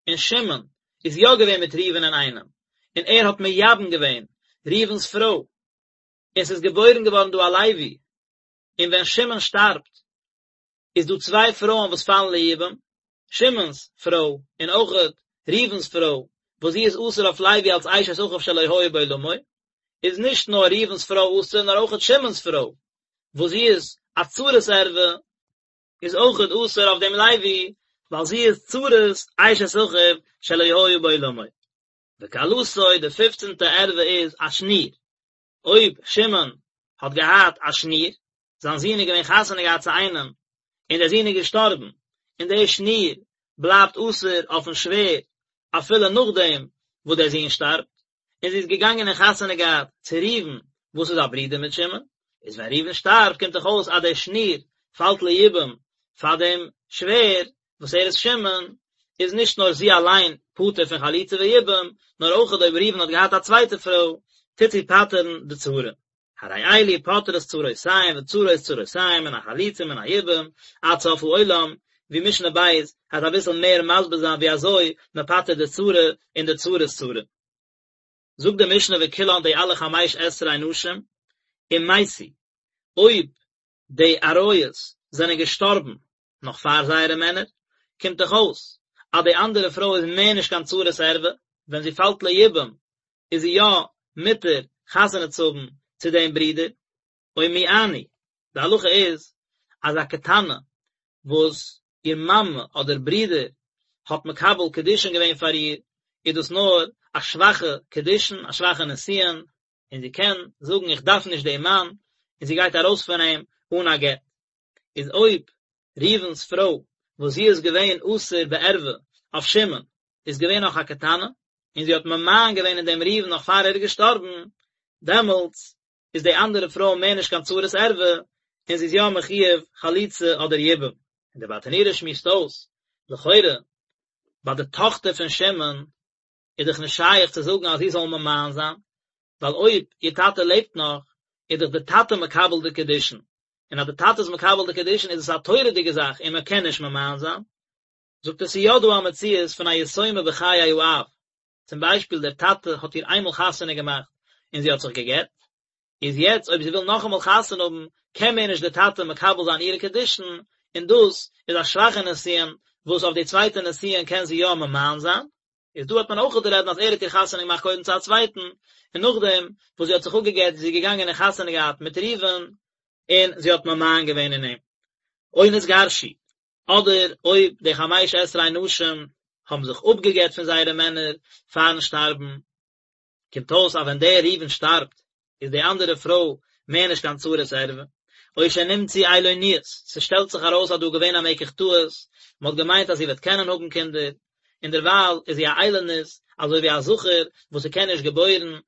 Speaker 1: און שמעון איז יא געווען מיט ראובן אינאיינעם, און ער האט מייבם געווען ראובן'ס פרוי, און ס'איז געבוירן געווארן דא א לוי, און ווען שמעון שטארבט, איז דא צוויי פרויען וואס פאלן ליבום, שמעון'ס פרוי און אויכעט ראובן'ס פרוי, וואס זי איז אסור אויף לוי אלס אשת אחיו שלא היה בעולמו, איז נישט נאר ראובן'ס פרוי אסור נאר אויכעט שמעון'ס פרוי, וואס זי איז א צרת ערווה, איז אויכעט אסור אויף דעם לוי, ווייל זי איז צרת אשת אחיו שלא היה בעולמו. וכלתו, די פופצנטע ערווה איז א שניר, אויב שמעון האט געהאט א שניר, זיין זון איז געווען חתונה געהאט צו איינעם, און דער זון איז געשטארבן, און דער שניר בלייבט אסור אויפן שווער אפילו נאכדעם וואס דער זון שטארבט, און זי איז געגאנגען און חתונה געהאט צו ראובן וואס איז א ברודער מיט שמעון, איז ווען ראובן שטארבט קומט דאך אויס אז דער שניר פאלט ליבום פאר דעם שווער וואס ער איז שמעון, איז נישט נאר זי אליין פטור פון חליצה ויבום, נאר אויכעט אויב ראובן האט געהאט א צווייטע פרוי, טוט זי פטר'ן די צרה. הרי אלו פוטרות צרותיהן וצרות צרותיהן מן החליצה ומן היבום עד סוף העולם, ווי משנה ב' העט אביסל מער מסביר זיין ווי אזוי מען פטר'ט די צרה און די צרת צרה. זאגט די משנה וכולן די אלע חמש עשרה נשים, אם מתו, אויב די עריות זענען געשטארבן נאך פאר זייערע מענער, קומט דאך אויס אז די אנדערע פרוי איז מער נישט קיין צרת ערווה, ווען זי פאלט ליבום איז זי יא מותר חתונה צו האבן צו דעם ברודער, או מיאנו, די הלכה איז אז א קטנה וואס איר מאמע אדער ברודער האט מקבל קידושין געווען פאר איר, איז דאס נאר א שוואכע קידושין, א שוואכע נישואין, און זי קען זאגן איך דארף נישט דעם מאן, און זי גייט ארויס פון אים אן א גט. איז אויב ראובן'ס פרוי וואס זי איז געווען אסור בערווה אויף שמעון איז געווען נאך א קטנה און זי האט ממאן געווען אין דעם ראובן נאך פאר ער איז געשטארבן, דעמאלטס איז די אנדערע פרוי מער נישט קיין צרת ערווה און זי איז יא מחויב חליצה אדער יבום. און דער ברטנורא שמועסט אויס, לכאורה ביי די טאכטער פון שמעון איז דאך נישט שייך צו זאגן אז זי זאל ממאן זיין, ווייל אויב איר טאטע לעבט נאך, איז דאך די טאטע מקבל די קידושין, און אז די טאטע איז מקבל די קידושין איז עס א תורה'דיגע זאך און מען קען נישט ממאן זיין. זאגט ער ס'איז יא דא א מציאות פון א יתומה בחיי האב, צום ביישפיל דער טאטע האט איר איינמאל חתונה געמאכט און זי האט זיך גע'גט, איז יעצט אויב זי וויל נאכאמאל חתונה האבן קען מער נישט דער טאטע מקבל זיין אירע קידושין, און דאס איז א שוואכע נישואין וואס אויף די צווייטע נישואין קען זי יא ממאן זיין, איז דא האט מען אויך רעדן אז ער האט איר חתונה געמאכט קודם צו א צווייטן, און נאכדעם וואס זי האט זיך אפגעגט איז זי געגאנגען און חתונה געהאט מיט ראובן, און זי האט ממאן געווען אין אים. או נתגרשו, אדער אויב די חמש עשרה נשים האבן זיך אפגעגט פון זייערע מענער פארן שטארבן, קומט אויס אז ווען דער ראובן שטארבט איז די אנדערע פרוי מער נישט קיין צרת ערווה, או שנמצאו איילוניות, ס'שטעלט זיך ארויס אז דא איז געווען א מקח טעות, מ'האט געמיינט אז זי וועט קענען האבן קינדער, און דערווייל איז זי א איילונית, אזוי ווי א זכר וואס ס'קען נישט געבוירן,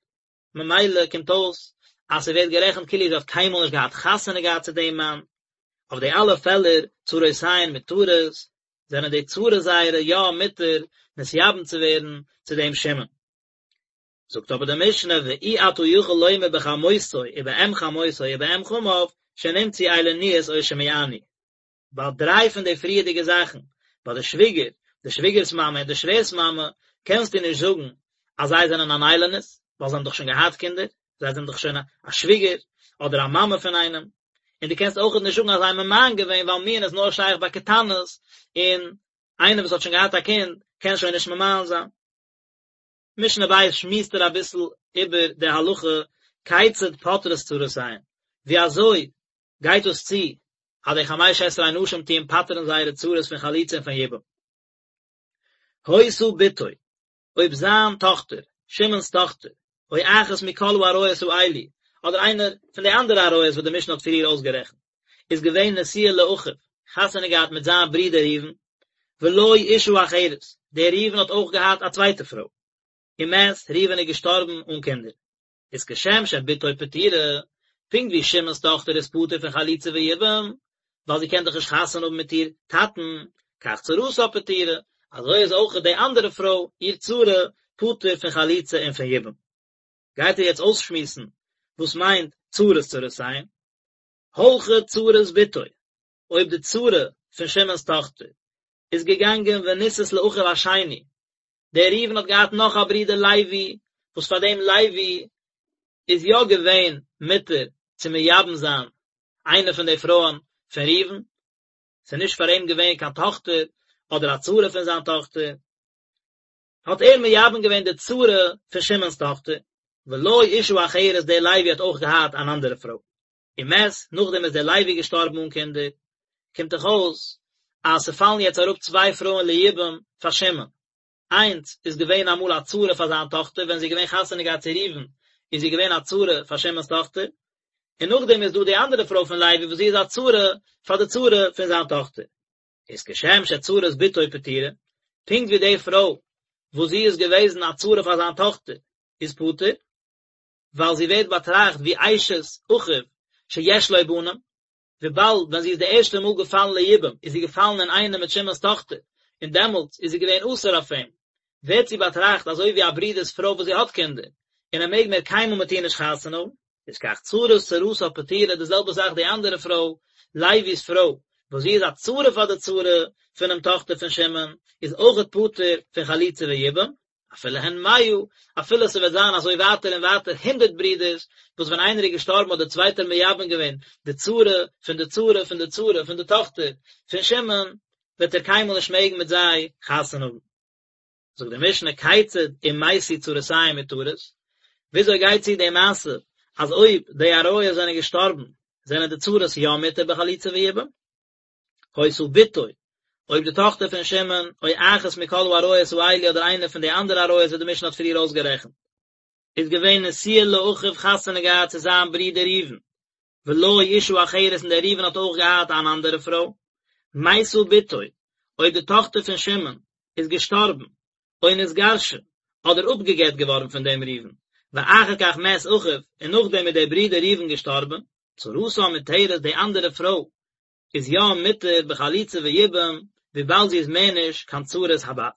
Speaker 1: ממילא קומט אויס אז ס'ווערט גערעכנט כאילו זי האט קיינמאל נישט געהאט חתונה געהאט צו דעם מאן, אויף די אלע פעלער צרותיהן מותרות, זענען די צרות זייערע יא מותר נתייבם צו ווערן צו דעם שמעון. זאגט אבער די משנה ואי אתה יכול לומר בחמותו ובאם חמותו ובאם חמיו שנמצאו איילוניות או שמיאנו. ביי דריי פון די פריערדיגע זאכן, ביי די שוויגער, די שוויגער'ס מאמע און די שווער'ס מאמע, קענסטו נישט זאגן אז זיי זענען אן איילונית, ווייל זיי האבן דאך שוין געהאט קינדער, זיי זענען דאך שוין א שוויגער אדער א מאמע פון איינעם, און דו קענסט אויכעט נישט זאגן אז זיי האבן ממאן געווען ווייל מיאון איז נאר שייך ביי קטנות, און איינער וואס האט שוין געהאט א קינד קען שוין נישט ממאן זיין. משנה ב' שמועסט ער אביסל איבער די הלכה כיצד פוטרות צרותיהן, ווי אזוי גייט דאס צו אז די חמש עשרה נשים טוען פטר'ן זייערע צרות פון חליצה און פון יבום. היתה בתו, אויב זיין טאכטער, שמעון'ס טאכטער, או אחת מכל העריות האלו, אדער איינער פון די אנדערע עריות וואס די משנה האט פריער אויסגערעכנט, איז געווען נשואה לאחיו, חתונה געהאט מיט זיין ברודער ראובן, ולו אשה אחרת, דער ראובן האט אויך געהאט א צווייטע פרוי, ומת, ראובן איז געשטארבן אן קינדער. איז כשם שבתו פטורה, פונקט ווי שמעון'ס טאכטער איז פטור פון חליצה ויבום, ווייל זי קען דאך נישט חתונה האבן מיט איר טאטן, כך צרתה פטורה, אזוי איז אויך די אנדערע פרוי, איר צרה, פטור פון חליצה און פון יבום. גייט ער יעצט אויסשמועסן וואס מיינט צרות צרותיהן. הלכה צרת בתו, אויב די צרה פון שמעון'ס טאכטער איז געגאנגען ונישאת לאחיו השני, דער ראובן האט געהאט נאך א ברודער לוי, וואס פאר דעם לוי איז יא געווען מותר צו מייבם זיין איינע פון די פרויען פון ראובן, ס'איז נישט פאר אים געווען קיין טאכטער אדער א צרה פון זיין טאכטער, האט ער מייבם געווען די צרה פון שמעון'ס טאכטער, ולו אשה אחרת דער לוי האט אויך געהאט אן אנדערע פרוי. ומת, נאכדעם איז דער לוי געשטארבן אן קינדער, קומט דאך אויס אז ס'פאלן יעצט אראפ צוויי פרויען ליבום פאר שמעון, איינס איז געווען אמאל א צרה פאר זיין טאכטער ווען זי איז געווען חתונה געהאט צו ראובן איז זי געווען א צרה פאר שמעון'ס טאכטער, און נאכדעם איז דא די אנדערע פרוי פון לוי וואס זי איז א צרה פאר די צרה פון זיין טאכטער. איז כשם שצרת בתו פטורה, פונקט ווי די פרוי וואס זי איז געוועזן א צרה פאר זיין טאכטער איז פטור, ווייל זי ווערט באטראכט ווי אשת אחיו שיש לו בנים, וויבאלד ווען זי איז די ערשטע מאל געפאלן ליבום איז זי געפאלן אינאיינעם מיט שמעון'ס טאכטער, און דעמאלטס איז זי געווען אסור אויף אים, ווערט זי באטראכט אזוי ווי א ברודער'ס פרוי וואס זי האט קינדער, און ער מעג מער קיינמאל מיט איר נישט חתונה האבן. איז כך צרת צרתה פטורה, די זעלבע זאך די אנדערע פרוי, לוי'ס פרוי, וואס זי איז א צרה פאר די צרה פונעם טאכטער פון שמעון, איז אויכעט פטור פון חליצה ויבום, אפילו הן מאה, אפילו ס'וועט זיין אזוי ווייטער און ווייטער הונדערט ברידערס, וואס ווען איינער איז געשטארבן האט דער צווייטער מייבם געווען די צרה פון די צרה פון די צרה פון די טאכטער פון שמעון, וועט ער קיינמאל נישט מעגן מיט זיי חתונה האבן. זאגט די משנה כיצד אם מתו צרותיהן מותרות, וויאזוי גייט צו די מעשה אז אויב די עריות זענען געשטארבן זענען די צרות יא מותר בחליצה ויבום? היתה בתו, אויב די טאכטער פון שמעון, או אחת מכל העריות האלו אדער איינע פון די אנדערע עריות וואס די משנה האט פריער אויסגערעכנט, איז געווען נשואה לאחיו חתונה געהאט צו זיין ברודער ראובן, ולו אשה אחרת און דער ראובן האט אויך געהאט אן אנדערע פרוי, מתה בתו, אויב די טאכטער פון שמעון איז געשטארבן, או נתגרשה, אדער אפגעגט געווארן פון דעם ראובן, ואחר כך מת אחיו, און נאכדעם איז דער ברודער ראובן געשטארבן, צרתה מותרת די אנדערע פרוי איז יא מותר בחליצה ויבום וויבאלד זי איז מער נישט קיין צרת הבת.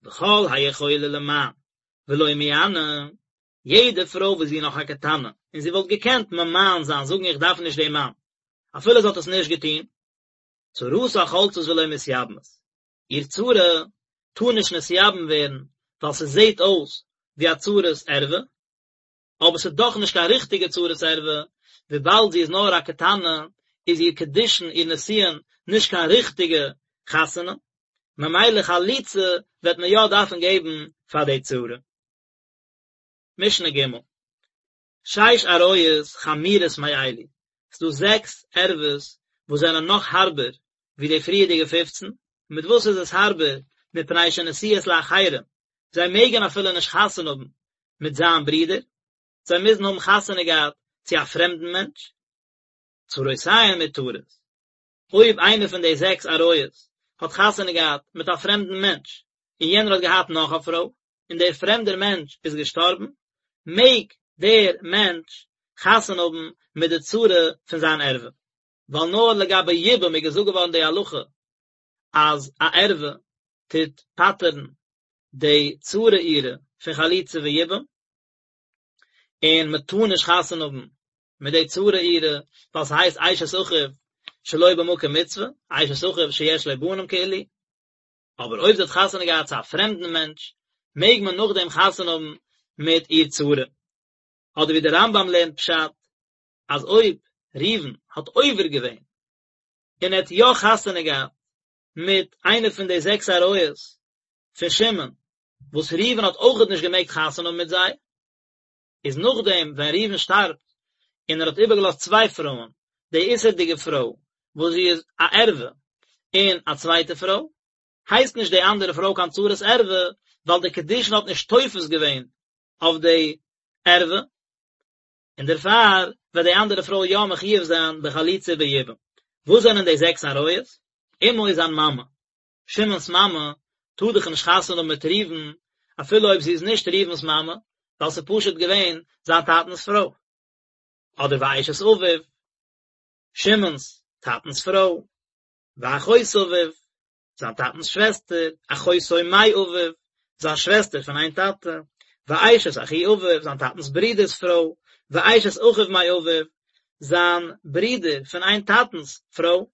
Speaker 1: וכל היכולה למאן ולא מיאנה, יעדע פרוי וואס זי איז נאך א קטנה און זי וואלט געקענט ממאן זיין זאגן איך דארף נישט דעם מאן אפילו זי האט עס נישט געטון, צרתה חולצת ולא מתייבמת, איר צרה טאר נישט נתייבם ווערן ווייל ס'זעט אויס ווי א צרת ערווה, אבער ס'איז דאך נישט קיין ריכטיגע צרת ערווה, וויבאלד זי איז נאר א קטנה, איז איר קידושין, איר נישואין, נישט קיין ריכטיגע חתונה, ממילא חליצה וועט מען יא דארפן געבן פאר די צרה. משנה ג', שש עריות חמורות מאלו, ס'דא זעקס ערוות וואס זענען נאך הארבער ווי די פריערדיגע פופצן, מיט וואס איז עס הארבער, מפני שנשואות לאחרים, זיי מעגן אפילו נישט חתונה האבן מיט זיין ברודער, זיי מוזן האבן חתונה געהאט צו א פרעמדן מענטש, צרותיהן מותרות, אויב איינער פון די זעקס עריות האט חתונה געהאט מיט א פרעמדן מענטש, און יענער האט געהאט נאך א פרוי, און דער פרעמדער מענטש איז געשטארבן, מעג דער מענטש חתונה האבן מיט די צרה פון זיין ערווה. ווייל נאר לגבי יבום איז געזאגט געווארן די הלכה אז א ערווה טוט פטר'ן די צרה אירע פון חליצה ויבום, און מען טאר נישט חתונה האבן מיט די צרה אירע, ווייל ס'הייסט אשת אחיו שלא במקום מצוה, אשת אחיו שיש לו בנים כאילו, אבער אויב זי האט חתונה געהאט צו א פרעמדן מענטש, מעג מען נאכדעם חתונה האבן מיט איר צרה. אדער ווי דער רמב"ם לערנט פשט, אז אויב ראובן האט עובר געווען און ער האט יא חתונה געהאט מיט איינע פון די זעקס עריות פון שמעון, וואס ראובן האט אויכעט נישט געמעגט חתונה האבן מיט זיי, איז נאכדעם ווען ראובן שטארבט און ער האט איבערגעלאזט צוויי פרויען, די איסור'דיגע פרוי וואס זי איז א ערווה און א צווייטע פרוי, הייסט נישט די אנדערע פרוי קיין צרת ערווה, ווייל די קידושין האט נישט תופס געווען אויף די ערווה, און דערפאר וועט די אנדערע פרוי יא מחויב זיין בחליצה וביבום. וואס זענען די זעקס עריות? אמו איז זיין מאמע, שמעון'ס מאמע טאר דאך נישט חתונה האבן מיט ראובן, אפילו אויב זי איז נישט ראובן'ס מאמע, ווייל ס'איז פשוט געווען זיין טאטנ'ס פרוי. אדער ואשת אביו, שמעון'ס טאטנ'ס פרוי, ואחות אביו, זיין טאטנ'ס שוועסטער, אחותו מאביו, זיין שוועסטער פון איין טאטע, ואשת אחי אביו, זיין טאטנ'ס ברודער'ס פרוי, ואשת אחיו מאביו, זיין ברודער פון איין טאטנ'ס פרוי.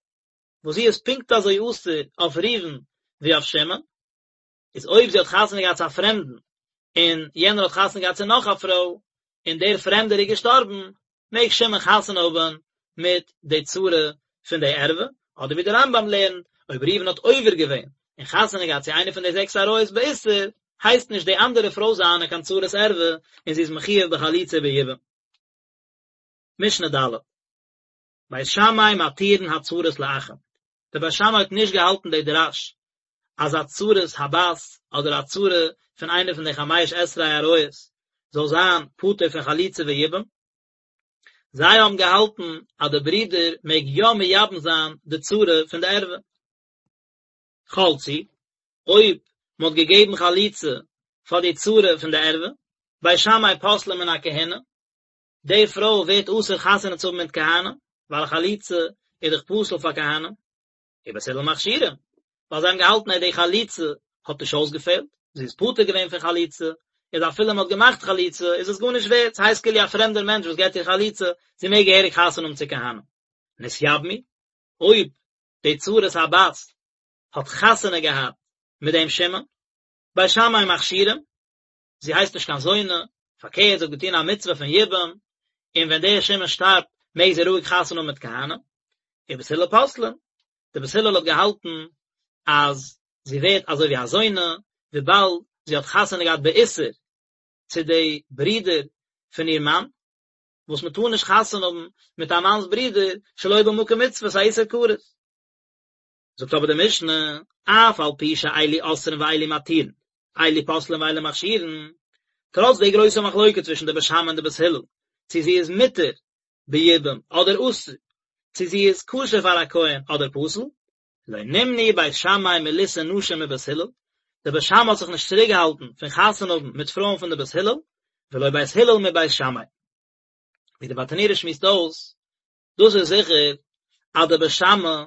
Speaker 1: וואס זי איז פונקט אזוי אסור אויף ראובן ווי אויף שמעון, איז אויב זי האט חתונה געהאט צו א פרעמדן, און יענער האט חתונה געהאט צו נאך א פרוי, און דער פרעמדער איז געשטארבן, מעג שמעון חתונה האבן מיט די צרה פון די ערווה, אדער ווי דער רמב"ם לערנט, אויב ראובן האט עובר געווען און חתונה געהאט צו איינע פון די זעקס עריות באיסור, הייסט נישט די אנדערע פרוי זיינע קיין צרת ערווה, און זי איז מחויב בחליצה וביבום. משנה ד'. בית שמאי מתירין הצרות לאחים, דער בית שמאי האט נישט געהאלטן די דרש אז א צרת הבת אדער א צרה פון איינע פון די חמש עשרה עריות זאל זיין פטור פון חליצה ויבום, זיי האבן געהאלטן אז די ברודער מעג יא מייבם זיין די צרה פון די ערווה. חלצו, אויב מען האט געגעבן חליצה פאר די צרה פון די ערווה, בית שמאי פוסלין מן הכהונה, די פרוי ווערט אסור חתונה צו האבן מיט כהנים, ווייל א חליצה איז דאך פסול פאר כהנים, ובית הלל מכשירים, ווייל זיי האבן געהאלטן אז די חליצה האט נישט אויסגעפעלט, זי איז פטור געווען פון חליצה, איז אפילו מען האט געמאכט חליצה איז עס גארנישט ווערט, ס'הייסט כאילו א פרעמדער מענטש וואס געבט איר חליצה, זי מעג געהעריג חתונה האבן צו כהנים. נתייבמו, אויב די צרת הבת האט חתונה געהאט מיט דעם שמעון, בית שמאי מכשירים, זי הייסט נישט קיין זונה, פארקערט זי האט געטון א מצוה פון יבום, און ווען דער שמעון שטארבט מעג זי רואיג חתונה האבן מיט כהנים, ובית הלל פוסלין, די בית הלל האט געהאלטן אז זי ווערט אזוי ווי א זונה, וויבאלד זי האט חתונה געהאט באיסור צו די ברודער פון איר מאן, וואס מען טאר נישט חתונה האבן מיט א מאנ'ס ברודער שלא במקום מצוה, ס'איז א איסור כרת. זאגט אבער די משנה, אף על פי שאלו אוסרין ואלו מתירין, אלו פוסלין ואלו מכשירין, טראץ די גרויסע מחלוקה צווישן די בית שמאי און די בית הלל, צו זי איז מותר ביבום אדער אסור, צו זי איז כשר פאר א כהן אדער פסול, לא נמנעו בית שמאי מלישא נשים מבית הלל, די בית שמאי האט זיך נישט צוריקגעהאלטן פון חתונה האבן מיט פרויען פון די בית הלל, ולא בית הלל מבית שמאי. ווי די ברטנורא שמועסט אויס, דאס איז זיכער אז די בית שמאי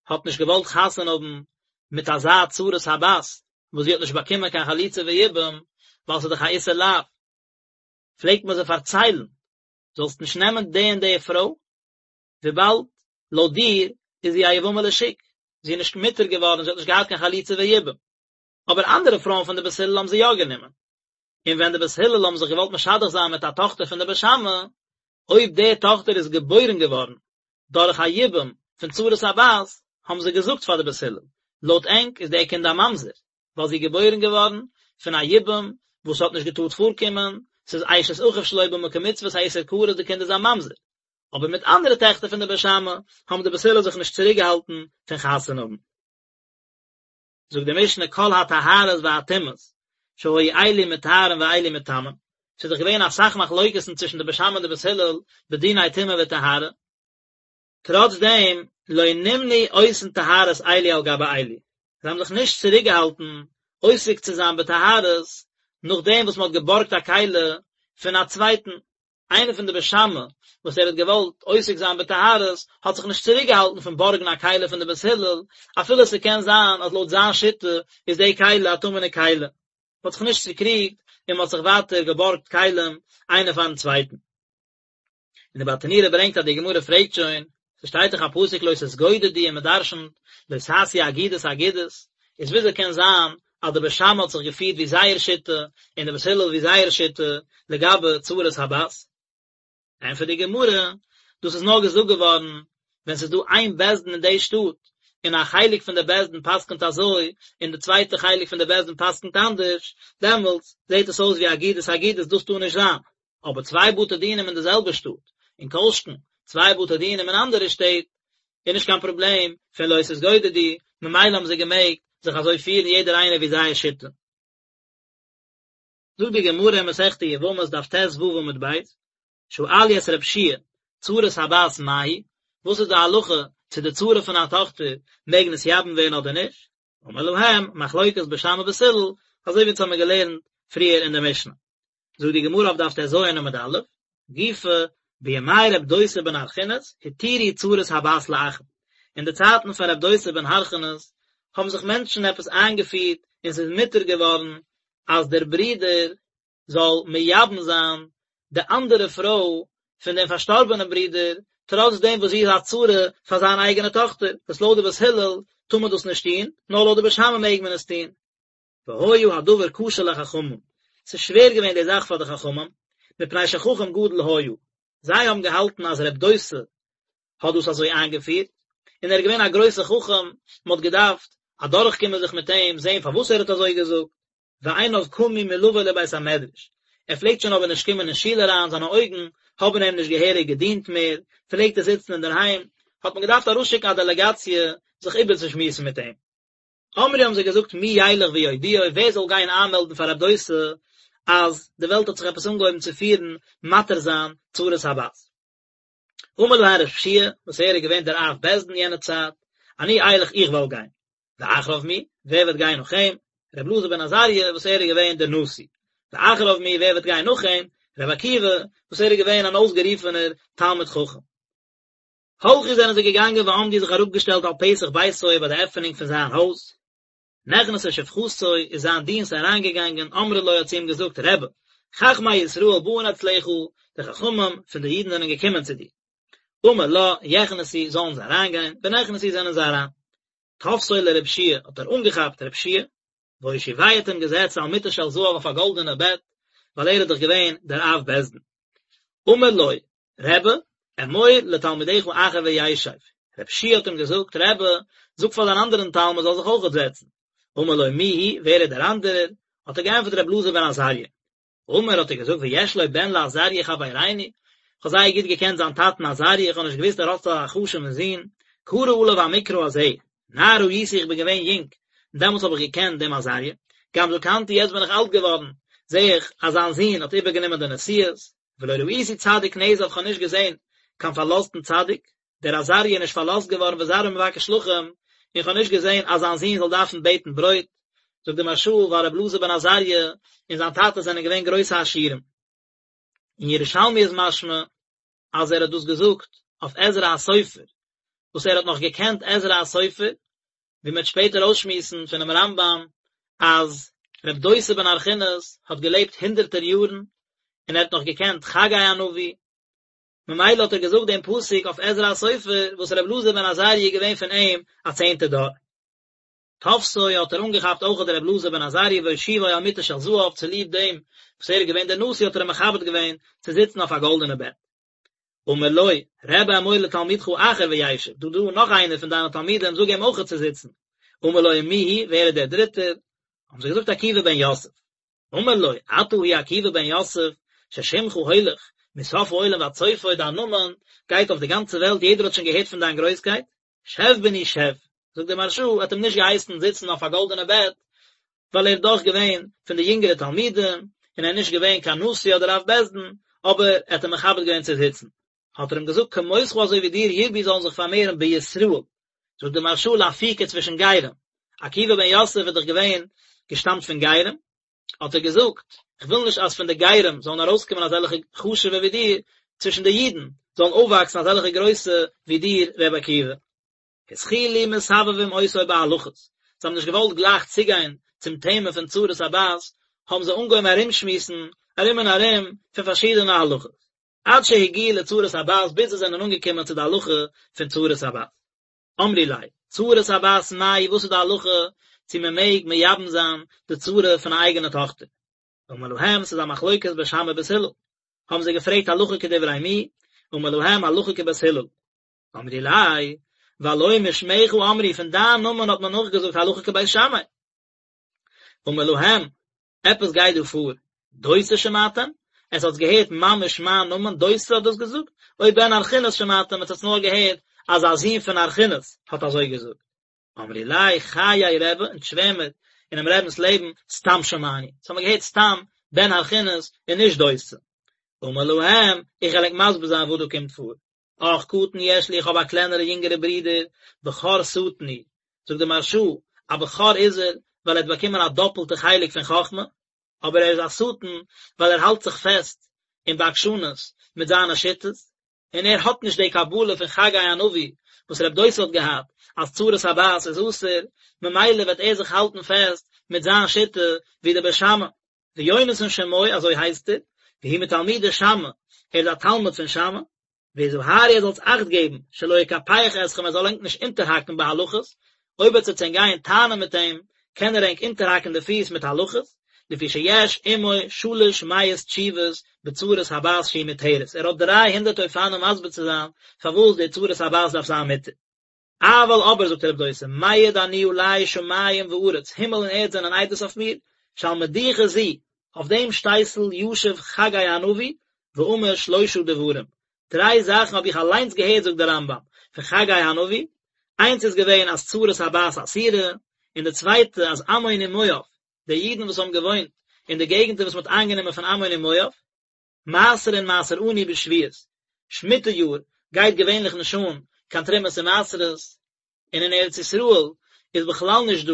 Speaker 1: האט נישט געוואלט חתונה האבן מיט אזא צרת הבת וואס זי האט נישט באקומען קיין חליצה ויבום ווייל ס'איז דאך א איסור לאו, פלעגט מען זיי פארציילן זאלסט נישט נעמען די און די פרוי וויבאלד לויט דיר איז זי א יבמה לשוק, זי איז נישט מותר געווארן, זי האט נישט געהאט קיין חליצה ויבום. אבער אנדערע פרויען פון די בית הלל האבן זי יא גענומען. און ווען די בית הלל האבן זיך געוואלט משדך זיין מיט א טאכטער פון די בית שמאי, אויב די טאכטער איז געבוירן געווארן דורך א יבום פון צרת הבת, האבן זיי געזאגט פאר די בית הלל, לויט ענק איז די קינד א ממזר, ווייל זי איז געבוירן געווארן פון א יבום וואס האט נישט געטארט פארקומען, ס'איז אשת אחיו שלא במקום מצוה, ס'איז א איסור כרת, די קינד איז א ממזר. אבער מיט אנדערע טעכטער פון די בית שמאי האבן די בית הלל זיך נישט צוריקגעהאלטן פון חתונה האבן. זאגט די משנה כל הטהרות והטומאות שהיו אלו מטהרין ואלו מטמאין, ס'איז דאך געווען אסאך מחלוקת'ן צווישן די בית שמאי און די בית הלל בדיני טומאה וטהרה, טראץ דעם לא נמנעו עושין טהרות אלו על גבי אלו, זיי האבן זיך נישט צוריקגעהאלטן עוסק צו זיין בטהרות נאכדעם וואס מ'האט געבארגט א כלי פון א צווייטן, איינער פון די בית שמאי וואס ער האט געוואלט עוסק זיין בטהרות האט זיך נישט צוריק געהאלטן פון בארגן א כלי פון די בית הלל, אפילו ס'קען זיין אז לויט זיין שיטה איז די כלי א טמא'נע כלי. מ'האט זיך נישט צוקריגט און מ'האט זיך ווייטער געבארגט כלים איינער פארן צווייטן. און די ברטנורא ברענגט אז די גמרא פרעגט שוין, ס'שטייט דאך א פסוק לא תתגודדו און מ'דרש'נט לא תעשו אגודות אגודות, איז וויאזוי קען זיין אז. אז די בית שמאי האט זיך געפירט ווי זייער שיטה און די בית הלל ווי זייער שיטה לגבי צרת הבת? ענטפערט די גמרא, דאס איז נאר געזאגט געווארן ווען ס'איז דא איין בית דין אין די שטאט, און א חלק פון די בית דין פסק'נט אזוי, און די צווייטע חלק פון די בית דין פסק'נט אנדערש, דעמאלטס זעט עס אויס ווי אגודות אגודות, דאס טאר נישט זיין. אבער צוויי בתי דינים אין די זעלבע שטאט, און כל שכן צוויי בתי דינים אין אנדערע שטעט, איז נישט קיין פראבלעם פון לא תתגודדו, ממילא האבן זיי געמעגט זיך אזוי פירן יעדער איינער ווי זייער שיטה. זאגט די גמרא אין מסכת יבמות דף ט"ו עמוד ב', שאלו את רב שיע, צרת הבת מהו, וואס איז די הלכה צו די צרה פון א טאכטער מעג נתייבם ווערן אדער נישט, אמר להם, מחלוקת בית שמאי ובית הלל, אזוי ווי אונז האמיר געלערנט פריער אין די משנה. זאגט די גמרא אויף דף ט"ז עמוד א', גופא, בימי רב דוסא בן הרכינס, התירו צרת הבת לאחין. אין די צייטן פון רב דוסא בן הרכינס האבן זיך מענטשן עפעס איינגעפירט און ס'איז מותר געווארן אז דער ברודער זאל מייבם זיין די אנדערע פרוי פון דעם פארשטארבענעם ברודער, טראץ דעם וואס זי איז א צרה פאר זיין אייגענע טאכטער, וואס לויט די בית הלל טאר מען דאס נישט טון, נאר לויט די בית שמאי מעג מען עס טון. והיה הדבר קשה לחכמים, ס'איז שווער געווען די זאך פאר די חכמים, מפני שחכם גדול היה, זיי האבן געהאלטן אז רב דוסא האט דאס אזוי איינגעפירט, און ער איז געווען א גרויסער חכם, מען האט געדארפט אדורכקומען זיך מיט אים, זען פארוואס ער האט אזוי געזאגט, ועיניו קמו מלבוא לבית המדרש, ער פלעגט שוין אבער נישט קומען אין שול אריין, זיינע אויגן האבן אים נישט געהעריג געדינט מער, פלעגט ער זיצן אינדערהיים, האט מען געדארפט ארויסשיקן א דעלעגאציע זיך איבערצושמועסן מיט אים. אמרו האבן זיי געזאגט מי ילך ויודיעו ווער זאל גיין איינמעלדן פאר רב דוסא אז די וועלט האט זיך עפעס אנגעהויבן צו פירן מתיר זיין צרת הבת. אמר להן רב שיע וואס ער איז געווען דער אב בית דין יענע צייט, אני אלך איך וועל גיין. ואחריו מי, ווער וועט גיין נאך אים? רבי אלעזר בן עזריה וואס ער איז געווען דער נשיא. ואחריו מי, ווער וועט גיין נאך אים? רבי עקיבא וואס ער איז געווען אן אויסגערופענער תלמיד חכם. הלכו זענען זיי געגאנגען ועמדו זיך אראפגעשטעלט על פתח ביתו ביי די עפענונג פון זיין הויז. נכנסה שפחתו איז זיין דינסט אריינגעגאנגען אמרה לו האט צו אים געזאגט רבי, חכמי ישראל באין אצלך, די חכמים פון די אידן זענען געקומען צו דיר. אמר לה, יכנסו, זאלן זיי אריינגיין, ונכנסו זענען זיי אריין. תפסו לרב שיע האט ער אנגעכאפט רב שיע, והושיבהו האט אים געזעצט על מיטה של זהב אויף א גאלדענע בעט, ווייל ער איז דאך געווען דער אב בית דין. אמר לו, רבי, אמור לתלמידך אחר וישב. רב שיע האט אים געזאגט, רבי, זאג פאר דיין אנדערן תלמיד זאל זיך אויכעט זעצן. אמר לו, מי הוא, ווער איז דער אנדערער? האט ער געענטפערט רבי אלעזר בן עזריה. אמר האט ער געזאגט ויש לו בן לעזריה חברינו, איך האב זייער גוט געקענט זיין טאטן עזריה, איך האב נישט געוואוסט ער האט אזא חשוב'ן זון, קרא עליו המקרא הזה, נער הייתי איך בין געווען יונג, און דעמאלטס האב איך געקענט דעם עזריה, גם זקנתי יעצט בין איך אלט געווארן, זע איך אז זיין זון האט איבערגענומען די נשיאות, ולא ראיתי צדיק נעזב איך האב נישט געזען קיין פארלאזטן צדיק, דער עזריה איז נישט פארלאזט געווארן וזרעו מבקש לחם, און איך האב נישט געזען אז זיין זון זאל דארפן בעטן ברויט, זאגט דער מהרש"א ווייל רבי אלעזר בן עזריה און זיין טאטע זענען געווען גרויסע עשירים. אין ירושלמי איז משמע אז ער האט דאס געזאגט אויף עזרא הסופר, וואס ער האט נאך געקענט עזרא הסופר, ווי מען וועט שפעטער אויסשמועסן פונעם רמב"ם אז רב דוסא בן הרכינס האט געלעבט הונדערטער יארן און ער האט נאך געקענט חגי הנביא, ממילא האט ער געזאגט דעם פסוק אויף עזרא הסופר וואס רבי אלעזר בן עזריה איז געווען פון אים א צענטע דור. תפסו האט ער אנגעכאפט אויך דער רבי אלעזר בן עזריה והושיבו על מיטה של זהב צוליב דעם וואס ער איז געווען דער נשיא האט ער אים מכבד געווען צו זיצן אויף א גאלדענע בעט. אמר לו, רבי אמור לתלמידך אחר וישב, דא דא נאך איינער פון דיינע תלמידים זאג אים אויך צו זיצן. אמר לו ומי הוא, ווער איז דער דריטער? האבן זיי געזאגט עקיבא בן יוסף. אמר לו, אתה הוא עקיבא בן יוסף, ששמך הולך מסוף העולם ועד סופו, דיין נאמען גייט אויף די גאנצע וועלט, יעדער האט שוין געהערט פון דיין גרויסקייט, שב בני שב, זאגט דער מהרש"א, האט אים נישט געהייסן זיצן אויף א גאלדענע בעט, ווייל ער איז דאך געווען פון די יונגערע תלמידים, און ער איז נישט געווען קיין נשיא אדער אב בית דין, אבער ער האט אים מכבד געווען צו זיצן. האט ער אים געזאגט כמותך אזוי ווי דיר ירבו זאלן זיך פארמערן בישראל, זאגט דער מהרש"א לאפוקי צווישן גרים, עקיבא בן יוסף איז דאך געווען געשטאמט פון גרים, האט ער געזאגט, איך וויל נישט אז פון די גרים זאלן ארויסקומען אזעלכע חשוב'ע ווי דיר, צווישן די אידן זאלן אויפוואקסן אזעלכע גרויסע ווי דיר ר' עקיבא. התחילו מסבבים אותו בהלכות, זיי האבן נישט געוואלט גלייך צוגיין צום טעמע פון צרת הבת, האבן זיי אנגעהויבן ארומשמועסן ארום און ארום פון פארשידענע הלכות, עד שהגיעו לצרת הבת, ביז זיי זענען אנגעקומען צו די הלכה פון צרת הבת. אמרו ליה, צרת הבת מאי, וואס איז די הלכה? צו מען מעג מייבם זיין די צרה פון א אייגענע טאכטער. אמר להם, ס'איז א מחלוקת בית שמאי ובית הלל. האבן זיי געפרעגט הלכה כדברי מי, אמר להם הלכה כבית הלל. אמרו ליה, והלא משמך אמרו, פון דיין נאמען האט מען נאכגעזאגט הלכה כבית שמאי. אמר להם, עפעס גייט דא פאר, דוסא שמעתם? עטס האטס געהערט ממש מיין נאמען, דוסא האט דאס געזאגט? או בן הרכינס שמעתם, עטס האטס נאר געהערט אז א זון פון הרכינס האט אזוי געזאגט? אמרו ליה, חיי רבי, אונז שווער מיר אינעם רבינ'ס לעבן, סתם שמענו, אונז האמיר געהערט סתם בן הרכינס און נישט דוסא. אמר להם, איך וועל ענק מסביר זיין וואס דא קומט פאר. אח קטן יש לי, איך האב א קלענערע יונגערע ברודער, בכור שטן הוא, זאגט דער מהרש"א, א בכור איז ער, ווייל ער האט באקומען א דאפלטע חלק פון חכמה, אבער ער איז א שטן, ווייל ער האלט זיך פעסט אין בעקשנות מיט זיינע שיטות, און ער האט נישט די קבלה פון חגי הנביא וואס רב דוסא האט געהאט, אז צרת הבת איז אסור, ממילא וועט ער זיך האלטן פעסט מיט זיין שיטה ווי די בית שמאי. ויונתן שמו, אזוי הייסט ער, והוא מתלמידי שמאי, ער איז א תלמיד פון שמאי, והזהרו איר זאלטס אכט געבן, שלא יקפח אתכם ער זאל ענק נישט אונטערהאקן בהלכות, אויב עטס וועטס ענק גייען טענה'ן מיט אים, קען ער ענק אונטערהאקן די פיס מיט הלכות, לפי שיש עמו שלש מאות תשובות בצרת הבת שהיא מותרת, ער האט דריי הונדערט אופנים מסביר צו זיין פארוואס די צרת הבת דארף זיין מותר. אבל אבער זאגט רב דוסא, מעיד אני עלי שמים וארץ, הימל און ערד זענען עדות אויף מיר, שעל מדוכה זו, אויף דעם שטייסל ישב חגי הנביא, ואמר שלושה דברים, דריי זאכן האב איך אליינס געהערט זאגט דער רמב"ם, פון חגי הנביא, איינס איז געווען אז צרת הבת אסורה, און די צווייטע אז עמון ומואב, די אידן וואס האבן געוואוינט אין די געגנטער וואס מען האט איינגענומען פון עמון און מואב, מעשרין מעשר עני בשביעית, שמיטה יאר גייט געווענליך נישט אן קיין תרומות און מעשרות, און אין ארץ ישראל איז בכלל נישט דא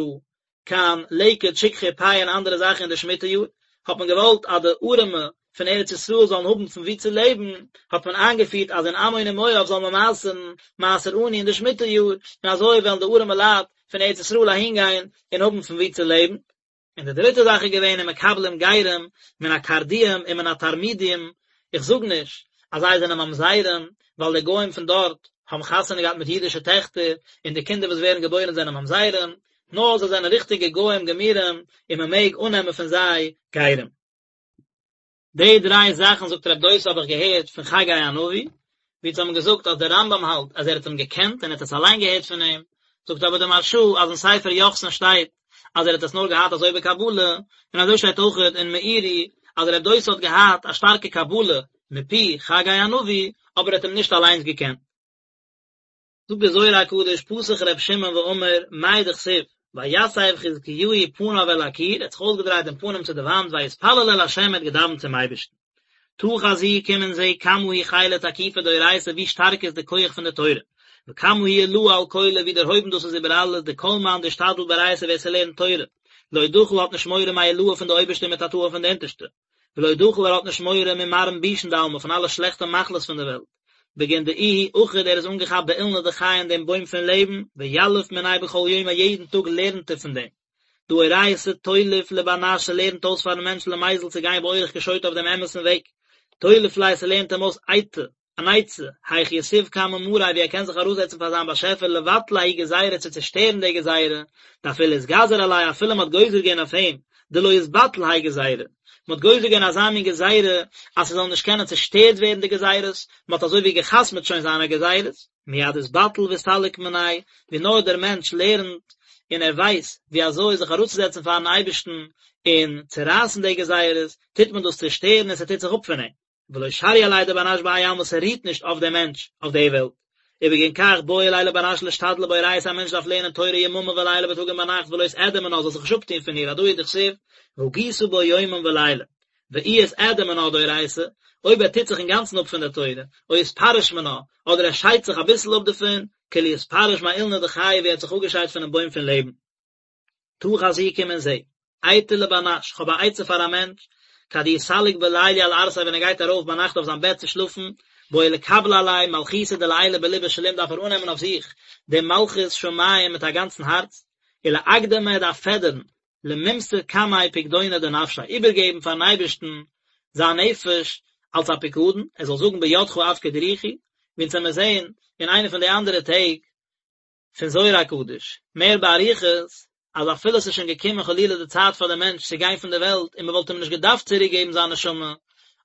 Speaker 1: קיין לקט שכחה פאה און אנדערע זאכן אין די שמיטה יאר, האט מען געוואלט אז די ארעמע פון ארץ ישראל זאלן האבן פון וואו צו לעבן, האט מען איינגעפירט אז אין עמון און מואב זאל מען מעשר'ן מעשר עני אין די שמיטה יאר, און אזוי וועלן די ארעמע לייט פון ארץ ישראל אהינגיין און האבן פון וואו צו לעבן. און די דריטע זאך איז געווען ומקבלים גרים מן הקרדיים ומן התרמודיים, איך זאג נישט אז זיי זענען ממזרים, ווייל די גוים פון דארט האבן חתונה געהאט מיט אידישע טעכטער, און די קינדער וואס ווערן געבוירן זענען ממזרים, נאר זיי זענען ריכטיגע גוים גמורים, און מען מעג אננעמען פון זיי גרים. די דריי זאכן זאגט רב דוסא האב איך געהערט פון חגי הנביא, ווי אונז האבן געזאגט אז דער רמב"ם האלט אז ער האט אים געקענט און ער האט עס אליין געהערט פון אים, זאגט אבער דער מהרש"א אז אין ספר יוחסין שטייט אז ער האט עס נאר געהאט אזוי בקבלה, און אזוי שטייט אויכעט אין מאירי אז רב דוסא האט געהאט א שטארקע קבלה מפי חגי הנביא, אבער ער האט אים נישט אליינס געקענט. זאגט דער זוהר הקדוש פתח ר' שמעון ואמר מאי דכתיב ויסב חזקיהו פניו אל הקיר ער האט זיך אויסגעדרייט דעם פנים צו די וואנט ויתפלל אל ה' ער האט געדאווענט צום אייבערשטן תא חזי קום און זע כמה הוא חילא תקיפא דאורייתא ווי שטארק איז די כח פון די תורה וכמה הוא עילאה על כולא ווי דערהויבן דאס איז איבער אלעס דכל מאן דאשתדל באורייתא ווער ס'לערנט תורה לא דחיל האט נישט מורא מעילאה פון די אויבערשטע ומתתאה פון די אונטערשטע ולא דחיל ער האט נישט מורא ממרעין בישין דעלמא פון אלע שלעכטע מחלות פון די וועלט, בגין דאיהו אחיד ער איז אנגעכאפט באילנא דחיי אין דעם בוים פון לעבן, ויליף מיניה בכל יומא יעדן טאג לערנט ער פון דעם. דהא אורייתא תוליף לבר נש ס'לערנט אויס פארן מענטש למיזל צו גיין באורח קשוטא אויף דעם אמת'ן וועג, תוליף ליה ס'לערנט אים אויס עיטא, אן עצה, היך יתיב קמי מאריה ווי ער קען זיך אראפזעצן פאר זיין באשעפער לבטלא ההיא גזירה צו צושטערן די גזירה, דאפילו אתגזר עליה אפילו מ'האט גוזר געווען אויף אים, דלא יתבטל האי גזירה, מ'האט גוזר געווען אזא מין גזירה אז ס'זאל נישט קענען צושטערט ווערן די גזירות, מ'האט אזוי ווי גע'חתמ'ט שוין זיינע גזירות, מיד אתבטל ואסתלק מניה, ווי נאר דער מענטש לערנט און ער ווייסט ווי אזוי זיך אראפצוזעצן פארן אייבערשטן און צורייסן די גזירות, טוט מען דאס צושטערן און ס'טוט זיך אפ פון אים. ולא שריא עליה דבר נש בהאי עלמא ס'רוהט נישט אויף דעם מענטש אויף די וועלט. ובגין כך בעי ליה לבר נש לאשתדלא באורייתא א מענטש דארף לערנען תורה יממא וליליא בייטאג און ביינאכט ולא יתאדע מינה זאל זיך נישט אפטוהן פון איר הדא הוא דכתיב והגית בו יומם ולילה ואי אתאדע מינה דאורייתא אויב ער טוט זיך אינגאנצן אפ פון דער תורה או אתפרש מינה אדער ער שיידט זיך אביסל אפ דערפון כאילו אתפרש מאילנא דחיי ווי ער האט זיך אפגעשיידט פונעם בוים פון לעבן. תא חזי קום און זע. אייתא לבר נש, כ'האב א עצה פאר א מענטש, כד איהו סליק בליליא על ערסיה ווען ער גייט ארויף ביינאכט אויף זיין בעט צו שלאפן, בעי לקבלא עליה מלכותא דלעילא בליבא שלים דארף ער אננעמען אויף זיך דעם מלכות שמים מיט א גאנצן הארץ, ולאקדמא ער דארף פעדערן, למימסר קמיה פקדונא דנפשיה, איבערגעבן פארן אייבערשטן זיין נפש אלס א פיקדון, ער זאל זאגן בידך אפקיד רוחי, ווי אונז עמיר זעהן אין איינע פון די אנדערע טעג, פון זוהר הקדוש, מער באריכות. אז אפילו עס איז שוין געקומען חלילה די צייט פאר די מענטש צו גיין פון די וועלט און מען וואלט אים נישט געדארפט צוריק געבן זיין נשמה,